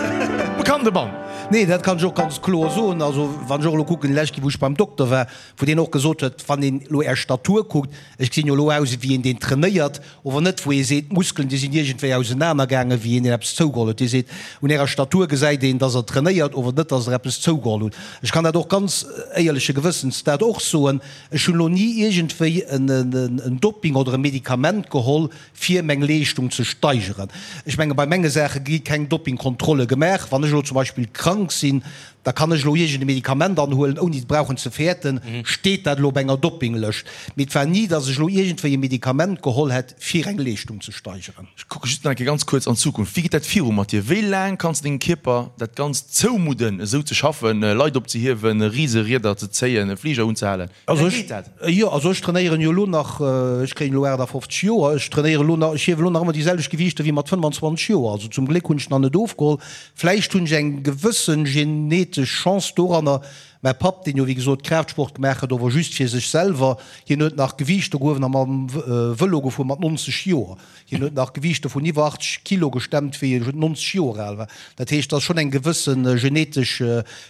Bekannte Mann. Nee, dat kann ech och ganz kloer soen. Also, wann ech och elo kucken, déi lescht Kéier, wou ech beim Dokter war, wou deen och gesot huet, wann een elo Är Statur kuckt, ech gesinn jo elo aus ewéi een, deen trainéiert, ower net, wou ee seet, d'Muskelen, déi sinn iergendwéi ausenanergaangen, wéi een, deen eppes zougeholl huet. Dee seet, un Ärer Statur gesäit een, dass Der trainéiert, ower net, dass Der eppes zougeholl hutt. Ech kann dat och ganz éierleche Gewëssens dat och soen, ech hunn elo ni iergendwéi en Doping oder e Medikament geholl, fir meng Leeschtung ze steigeren. Ech menge bei menge Saache gi keng Doppingkontrolle gemaach. Wann ech elo zum Beispill krank sinn, da kann ech elo iergend e Medikament anhuelen, ouni et brauchen ze fäerten, steet dat elo op enger Doppinglëscht. Mee et war ni, datt ech elo iergendwéi e Medikament geholl hätt, fir eng Leeschtung ze steigeren. Ech kucke just nach eng Kéier ganz kuerz an d'Zukunft. Wéi geet dat viru mat dir? Wéi laang kanns de dengem Kierper dat Ganzt zoumudden, esou ze schaffen, Leit opzehiewen, Riserieder ze zéien, e Fliger unzehalen? Also ech, jo, also ech trainéieren jo elo nach, ech kréien elo 58 Joer, ech trainéieren elo nach, ech hiewen elo nach ëmmer déi selwecht Gewiichter wéi mat 25 Joer. Also zum Gléck hunn ech nach net ofgeholl. Vläicht hunn ech eng gewëssen genetesch Chance doranner. Mäi Papp, deen jo wéi gesot Kraaftsport gemaach huet, ower just fir sech selwer, hien huet nach Gewiichter gehuewen a mam Vëlo gefuer mat 90 Joer. Hien huet nach Gewiichter vun iwwer 80 Kilo gestemmt, wéi e 90 Joer al war. Dat heescht, et ass schonn eng gewësse genetesch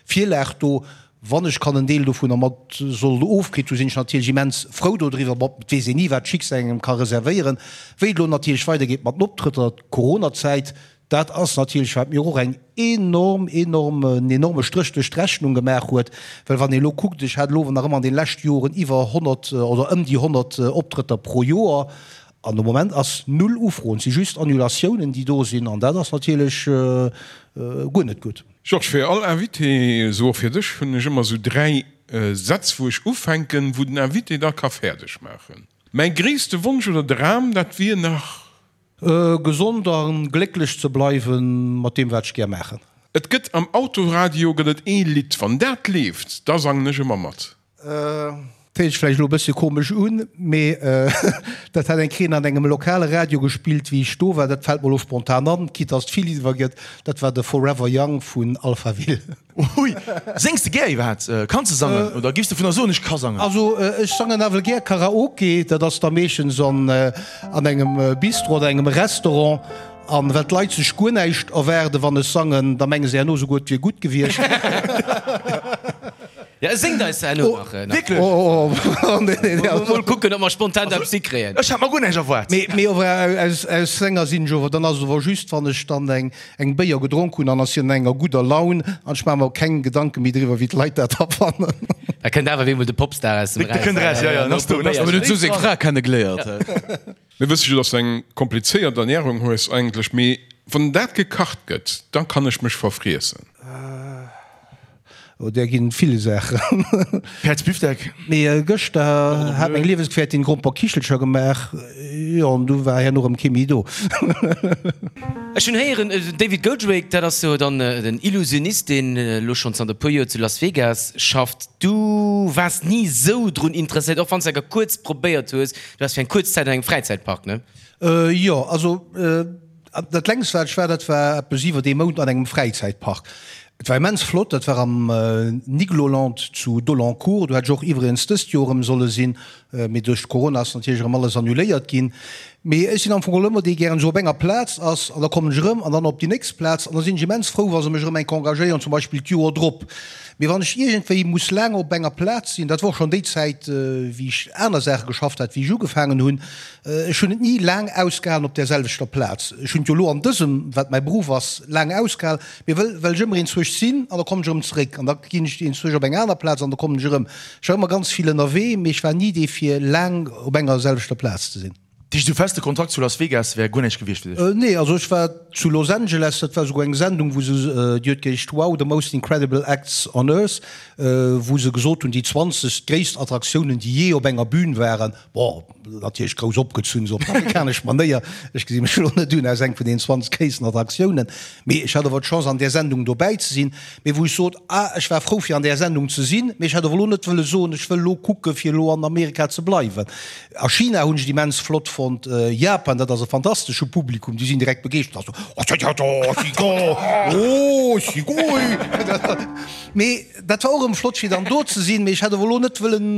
Virlag do. Wann ech kann en Deel dovunner mat sollt ofkritt hu sinn ech natierlech immens frou dodriwwer. Bon, et weess een ni wat d'Schicksal engem ka reservéieren. Wéi et elo natierlech weidergeet mat den Optrëtter, d'Coronazäit, dat ass natierlech wat mir och eng enorm, enorm, en enorme Stréch duerch d'Rechnung gemaach huet. Well wann ee elo kuckt, ech hat elo nach ëmmer an den leschte Joren iwwer 100 oder ëm déi 100 Optrëtter pro Joer an de Moment ass null Ufroen, et si just Annulatiounen déi do sinn an dat ass natierlech guer net gutt. Georges, fir all Invité, esou och fir dech, hunn ech ëmmer esou 3 Sätz wou ech ufänken, wou den Invité da ka fäerdeg maachen. Mäi gréisste Wonsch oder Dram, dat wier nach. Gesond a glécklech ze bleiwen mat deem wat ech gär maachen. Et gëtt am Autoradio gëtt et ee Lidd, wann dat leeft, da sangen ech ëmmer mat. Héiert sech vläicht elo e bëssche komesch un, mee dat hat eng Kéier an engem lokale Radio gespillt, wéi ech do war. Dat fält mer elo spontan an, quitte dass et vill iwwer gëtt. Dat war de Forever Young vun Alphaville. Hui! Séngs de gär iwwerhaapt? Kanns de sangen oder giffs de vun der soen, ech ka sangen? Also ech sangen nawell gär Karaoke. Dat ass da meeschtens an engem Bistro oder engem Restaurant. An well d'Leit sech guer näischt erwaarden, wann ech sangen, da menge se herno souguer, et wier gutt gewiescht. Ja, e séngt eis herno nach. Wierklech? Oh, oh, nee, nee, nee. Mol kucken, ob mer spontan eppes hikréien. Ech hat mer guer näischt erwaart. Mee, mee ower aus, aus Sänger sinn ech ower, dann ass et ower just, wann ech dann eng, eng Béier gedronk hunn an ech sinn an enger gudder Laun an ech maache mer keng Gedanke méi driwwer, wéi d'Leit dat da fannen. Da kënnt awer wéi emol de Popstar aus dem Eraus. Da kënnt eraus, ja, ja, dann ass do, dann ass do. Huet esou seng Fra kennegeléiert. Mir wësse jo, dass du eng komplizéiert Ernährung hues eigentlech, mee wann dat gekacht gëtt, da kann ech mech verfriessen. Oh, där ginn vill Saachen. Päerdsbifdeck. Mee gëschter hat meng Liewesgefährtin Gromperkichelcher gemaach, jo, an du war herno erëm kee méi do. Ech hunn héieren, den David Goldrake, dat ass jo dann den Illusionist, deen elo schonn zanter e puer Joer zu Las Vegas schafft. Du waars ni esou drun interesséiert, och wann s de enker kuerz probéiert hues, Du waars fir eng kuerz Zäit an engem Fräizäitpark, ne? Jo, also dat längst wat ech war, dat war eppes iwwert ee Mount an engem Fräizäitpark. Et war immens flott, dat war am Nigloland zu Dolancourt. Do hätt ech och iwwregens dëst Joer erëm solle sinn, mee duerch Corona ass natierlech erëm alles annuléiert ginn. Mee ech sinn am Fong geholl ëmmer dee gären esou op enger Plaz ass an da kommen ech erëm an dann op déi nächst Plaz an da sinn ech immens frou, wa se mech erëm eng Kéier engagéieren, zum Beispill d'Joer drop. Mee wann ech iergendwéi muss laang op enger Plaz sinn, dat war och schonn déi Zäit, wéi ech aner Saache geschafft hat, wéi ech ugefaangen hunn, ech hunn et ni laang ausgehalen op där selwechter Plaz. Ech hunn et jo elo an dësem, wat mäi Beruff ass, laang ausgehal, mee wëll well ech ëmmer enzwousch sinn an da kommen ech erëm zeréck an da ginn ech enzwousch op eng aner Plaz an da kommen ech erëm. Ech war ëmmer ganz vill ënnerwee, mee ech war ni dee fir laang op enger selwechter Plaz ze sinn. Dat heescht, esou feste Kontrakt zu Las Vegas wär guer näischt gewiescht fir dech? Nee, also ech war zu Los Angeles, dat war esouguer eng Sendung, wou se, déi huet geheescht Wow, the most incredible acts on earth, wou se gesot hunn, déi 20 gréisst Attraktiounen, déi jee op enger Bühn waren. Bon, natierlech grouss opgezunn, esou op amerikanesch Manéier. Ech gesi mech elo net un als eng vun deenen 20 gréissten Attraktiounen, mee ech hat awer d'Chance an där Sendung dobäi ze sinn. Mee wou ech sot, ah, ech war frou fir an där Sendung ze sinn, mee ech hätt awer elo net wëlle soen, ech wëll elo kucke fir elo an Amerika ze bleiwen. A China hunn ech et immens flott fonnt, Japan, dat ass e fantastesche Publikum, déi sinn direkt begeeschtert, oh, sugoi. Mee dat war och erëm flott fir dann do ze sinn, mee ech hätt awer elo net wëllen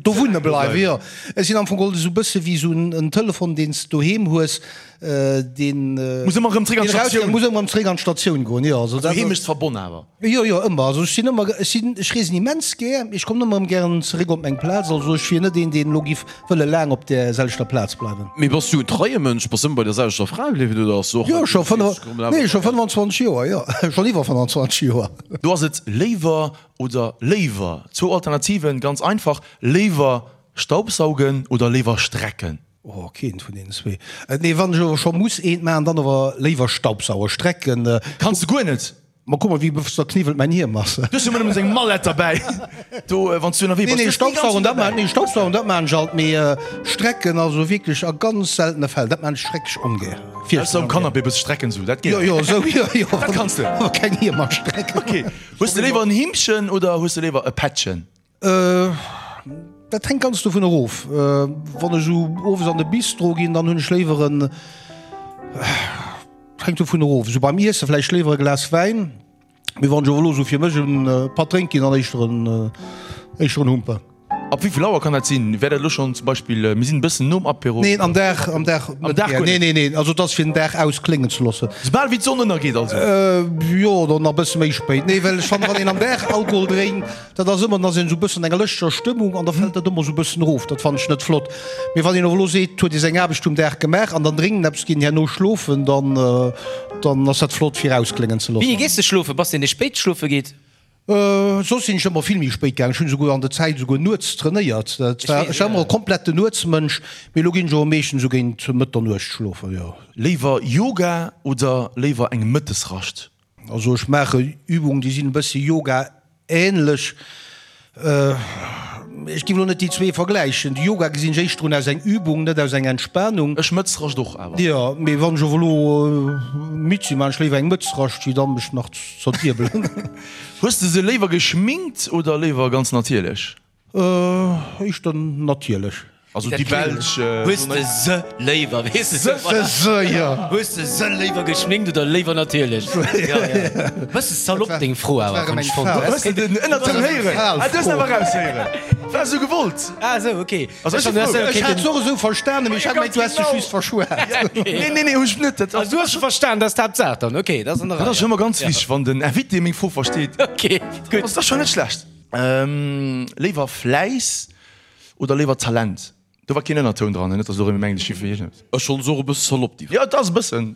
do wunne bleiwen. Jo, ech sinn am Fong geholl esou e bësse wéi esou en Telefon, deen s de doheem hues, Deen muss ëmmer erëm zréck an d'Statioun. Muss ëmmer erëm zréck an d'Statioun goen, jo. Also dat Heemechtsverbonn awer. Jo, jo, ëmmer. Also ech sinn ëmmer, ech sinn, ech reesen immens gär, mee ech kommen ëmmer erëm gären zeréck op meng Plaz. Also ech wier net een, deen elo giff wëlle laang op där selwechter Plaz bleiwen. Mee bass du en treie Mënsch? Bass ëmmer bei der selwechter Fra bliwwen oder ass och. Jo, scho nee, scho 25 Joer, jo, schonn iwwer 25 Joer. Do ass et léiwer oder léiwer. Zwou Alternativen, ganz einfach, léiwer Staubsaugen oder léiwer strecken? Oh, keent vun deenen zwee. Nee, wann ech awer scho muss eent maachen, dann awer léiwer Staubsauer. Strecken. Kanns de guer net. Ma kuck mol, wéi zerkniwwelt mäin Hiem ass. Du hues jo ëmmer nëmmen seng Mallett derbäi, do, wann s du ënnerwee bass. Nee, nee, Staubsaugen, dat maan, nee, Staubsaugen, dat maan ech alt, mee strecken, also wierklech a ganz seltene Fäll. Dat maan ech schrecklech ongär. Ausser um Canapé e bësse strecken, sou, dat geet. Jo, jo, sou, jo, jo. Dat kanns de. Awer keng Hiemer strecken. Ok. Hues de léiwer en Himmchen oder hues de léiwer e Pättchen? Dat hänkt ganz dovun erof. Wann ech esou owes an de Bistro ginn, dann hunn ech léiwer en, hänkt dovun erof, esou beim Iesse vläicht léiwer e Glas Wäin, mee wann ech awer elo esou fir mech e Patt drénk ginn, dann éischter en, éischter en Humper. Ab wéi vill Auer kann dat sinn? Wär dat elo schonn zum Beispill, mir sinn e bëssen nom Apéro? Neen, am Dag, am Dag Am Dag guer net? Nee, nee, nee, also et ass fir den Dag auskléngen ze loossen. Soubal wéi d'Sonn ënnergeet also? Jo, oder nach e bësse méi spéit. Nee, well ech fannen, wann een am Dag Alkohol drénkt, Dat ass ëmmer, dann ass een esou e bëssen an enger lëschtger Stëmmung an da fält dat ëmmer esou e bëssen erof. Dat fannen ech net flott. Mee wann een och elo seet, huet ee seng Aarbecht um Dag gemaach an dann dréngt en eppes, geet en herno schlofen, dann, dann ass dat flott fir auskléngen ze loossen. Wéini gees de schlofen? Bass de een dee spéit schlofe geet? Soss sinn ech ëmmer vill méi spéit gaangen. Ech hunn esouguer an der Zäit esouguer nuets trainéiert. Dat war, ech war ëmmer e kompletten Nuetsmënsch, mee elo ginn ech awer meeschtens esou géint Mëtternuecht schlofen, jo. Léiwer Yoga oder léiwer eng Mëttesrascht? Also ech maache Übungen, déi sinn e bëssi Yoga-ähnlech. Ech géif elo net déi zwee vergläichen. De Yoga gesinn ech éischter un aus eng Übung, net aus eng Entspanung. Ech Mëtzrascht och awer. Jo, mee wann ech awer elo midd sinn, maachen ech léiwer eng Mëtzrascht, wéi dann mech nach z'zerdiebelen. Hues de se léiwer geschminkt oder léiwer ganz natierlech? Éischter natierlech. Also déi belsch. Hues de se léiwer, weess de se, se, jo. Hues de se léiwer geschminkt oder léiwer natierlech? Jo, jo. Bësse salopp deng Fro awer, hunn ech fonnt. Hues de den Ënnertoun héieren? Ah, du hues en awer eraushéieren. War esou gewollt. Ah esou, ok. Also ech si frou. Ech hat se och esou verstanen, mee ech hat gemengt, du häss dech just verschwat. Nee, nee, nee, hu ech net. Also du hues se verstan, dat ass d'Haaptsaach dann. Ok, dat ass an der Rei. Dat ass schonn ëmmer ganz wichteg, wann den Invité meng Fro versteet. Ok, gutt. Ass dat schonn net schlecht. Léiwer Fläiss oder léiwer Talent? Do war keen Ënnertoun dran, net dass elo erëm mengt ech gi fir iergendeppes. Ech schonn se och e bësse salopp déi. Jo et ass e bëssen.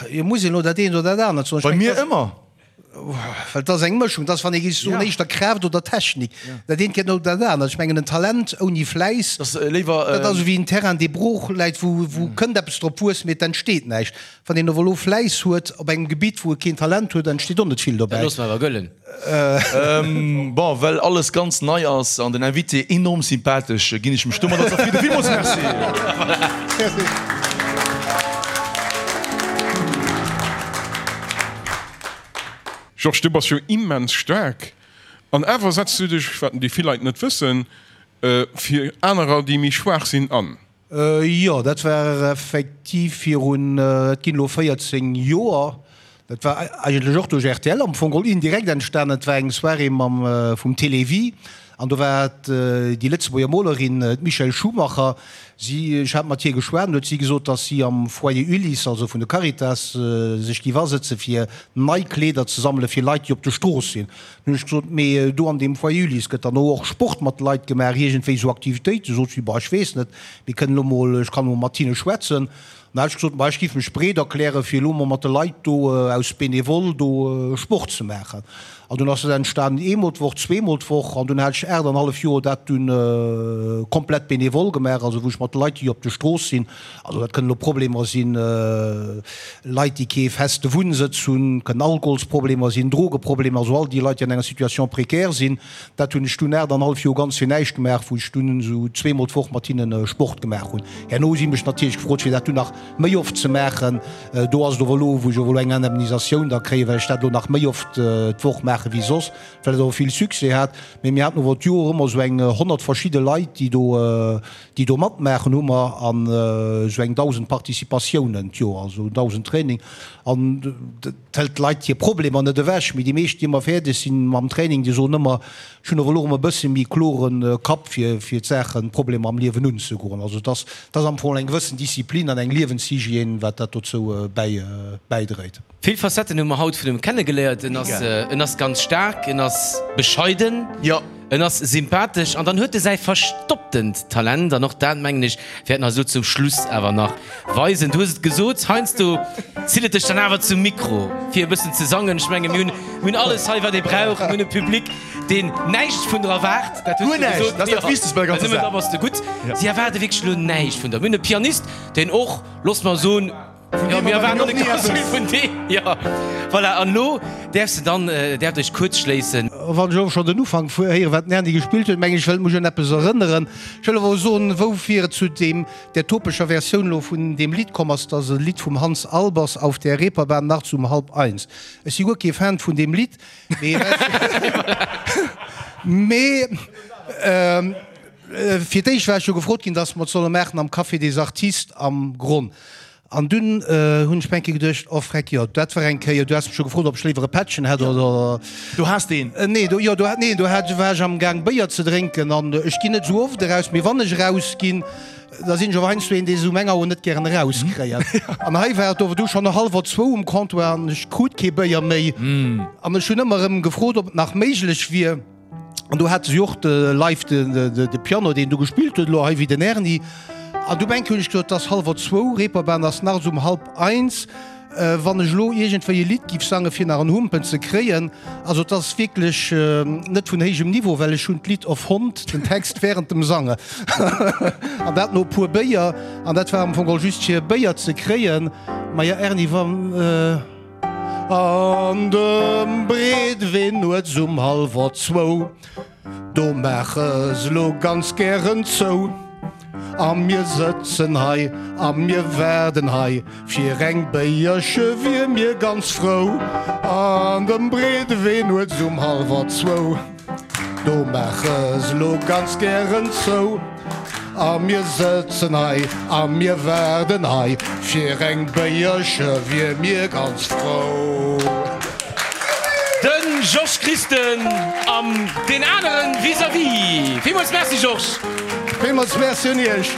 Jo muss een elo dat eent oder dat anert soen. Bei mir ëmmer. Well et ass eng Mëschung, et ass wann ee géif soen éischter Kraaft oder Technik. Dat eent geet no dat anert. Ech mengen en Talent ouni Fläiss, dat ass esou wéi en Terrain dee brooch läit, wou wou kënnt eppes drop wuessen, mee et entsteet näischt. Wann een awer elo Fläiss huet op engem Gebitt wou e keen Talent huet, entsteet och net vill dobäi. Dat loosse mer awer gëllen. Bon, well alles ganz nei ass an den Invité enorm sympathesch, ginn ech mech domadder zefridden. Villmools Merci! Georges, du bass jo immens staark an awer setz du dech, wat déi vill Leit net wëssen, fir anerer, déi méi schwaach sinn, an. Jo, dat war effektiv virun, et ginn elo 14 Joer. Dat war eigentlech och duerch rtl am Fong geholl indirekt entstanen. Et war eng Soirée mam, vum Télévie. An do war déi Lëtzebuerger Molerin, d'Michèle Schumacher, si, ech hat mat hir geschwat, an huet si gesot, datt si am Foyer Ulysse, also vun de Caritas, sech géif asëtze fir nei Kleeder ze sammele fir Leit, déi op der Strooss sinn. Dunn hunn ech gesot, Mee do an deem Foyer Ulysse gëtt dann och Sport mat de Leit gemaach, iergendwéi esou Aktivitéiten? Sot si, Bah, ech weess net, mir kënnen elo mol, ech kann emol mat hinne schwätzen. Dann hat ech gesot, Ma ech géif mech breet erklären, fir elo mol mat de Leit do aus Benevole do Sport ze maachen. An dunn ass dat entstanen, eemol d'Woch, zweemol d'Woch. An dunn hat ech 8 an hallef Joer dat dunn komplett benevole gemaach, also wou ech mat de Leit, déi op der Strooss sinn, also dat kënnen elo Problemer sinn, Leit, déi kee feste Wunnsëtz hunn, kënnen Alkoholsproblemer sinn, Drogeproblemer, also all déi Leit, déi an enger Situation précaire sinn. Dat hunn ech dunn 8 an hallef Joer ganz fir näischt gemaach, wou ech dunn esou zweemol d'Woch mat hinne Sport gemaach hunn. Herno hu si mech natierlech gefrot, fir dat dunn nach méi oft ze maachen. Do ass et ower elo, wou ech ower elo eng Indemnisatioun da kréien, well ech dat elo nach méi oft d'Woch maache wéi soss, well et ower vill Succès hat. Mee mir haten ower d'Joer ëmmer esou eng 100 verschidde Leit, déi do, déi do matmaachen, hu mer an esou eng 1.000 Participatiounen d'Joer, also 1.000 Training. An Et hëlt d'Leit hir Problemer net ewech, mee déi meescht, déi ëmmer fäerdeg sinn mam Training, déi soen ëmmer, ech hunn awer elo erëm e bësse méi klore Kapp fir fir d'Saachen, d'Problemer am Liewen unzegoen. Also et ass, et ass am Fong eng gewëssen Disziplin an eng Liewenshygiène, wat dat dozou bäi bäidréit. Vill Facetten hu mer haut vun em kennegeléiert. En ass, en ass ganz staark, en ass bescheiden. En ass sympathesch an dann huet e säi verstopptent Talent an och dat, mengen ech, wäert en eis elo zum Schluss awer nach weisen. Du hues et gesot, heiansdo zitt et dech dann awer zum Mikro, fir e bëssen ze sangen. Ech menge mir hunn, mir hunn alles hei, wat ee brauch. Mir hunn e Public, deen näischt vun der erwaart. Dat hues du gesot. Dat ass dat Wichtegst bei der ganzer Saach. Nëmmen da bass de gutt. Si erwaarde wierklech elo näischt vun der. Mir hunn e Pianist, deen och, looss mer soen, Jo, mir erwaarden och net ganz vill vun deem. Jo, voilà, an elo däerfs de dann, däerft Iech kuerz schléissen. Wann ech elo schonn den Ufank héieren, wat den Erny gespillt huet, mengen ech, wëllt mech un eppes erënneren. Ech wëll awer soen, woufir et zu deem, där topescher Versioun elo vun deem Lidd komm ass. Dat ass e Lidd vum Hans Albers, Auf der Reeperbahn nachts um halb eins. Ech si guer kee Fan vun deem Lidd, mee mee fir d'éischt war ech jo gefrot ginn, dass mer et solle maachen am Café des Artistes am Gronn. An dunn hunn ech mir eng Kéier geduecht, oh freck, jo, dat war eng Kéier, du has mech jo gefrot, ob ech léiwer e Pättchen hätt oder. Do has de een? Nee, do, jo, do hat, nee, do hat, war ech am Gaang Béier ze drénken an ech ginn net esou oft eraus, mee wann ech erausginn, da sinn ech och heiansdo een, dee se um eng Auer net gären erauskréien. An hei war et ower du schonn hallwer zwou um Comptoir an ech krut kee Béier méi an ech hunn ëmmer erëm gefrot, ob et nach méiglech wier. An do hate si och de live de Piano, deen do gespillt huet, elo hei wéi den Erny. An du eng Kéier hunn ech gesot, et ass hallwer zwou, Reeperbahn ass nachts um halb eins. Wann ech elo iergendwéi e Lidd giff sange fir nach en Humpen ze kréien, also et ass wierklech net vun héijem Niveau, well ech hunn d'Lidd erfonnt, den Text während dem Sange. An dat no e puer Béier. An dat war am Fong geholl just fir e Béier ze kréien. Maja Erny, wann. An dem Breedwee nuets um hallwer zwou, do maache se lo ganz gären zou. A mir sëtzen hei a mir waarden hei, fir eng Béierche wier mir ganz frou. An dem Breedewee nuets um hallwer zwou. Do maache se lo ganz gären zou. A mir sëtzen hei a mir waarden hei, fir eng Béierche wier mir ganz frou. De Georges Christen an deen aneren vis-à-vis. Villmools Merci Georges! Villmools Merci un Iech!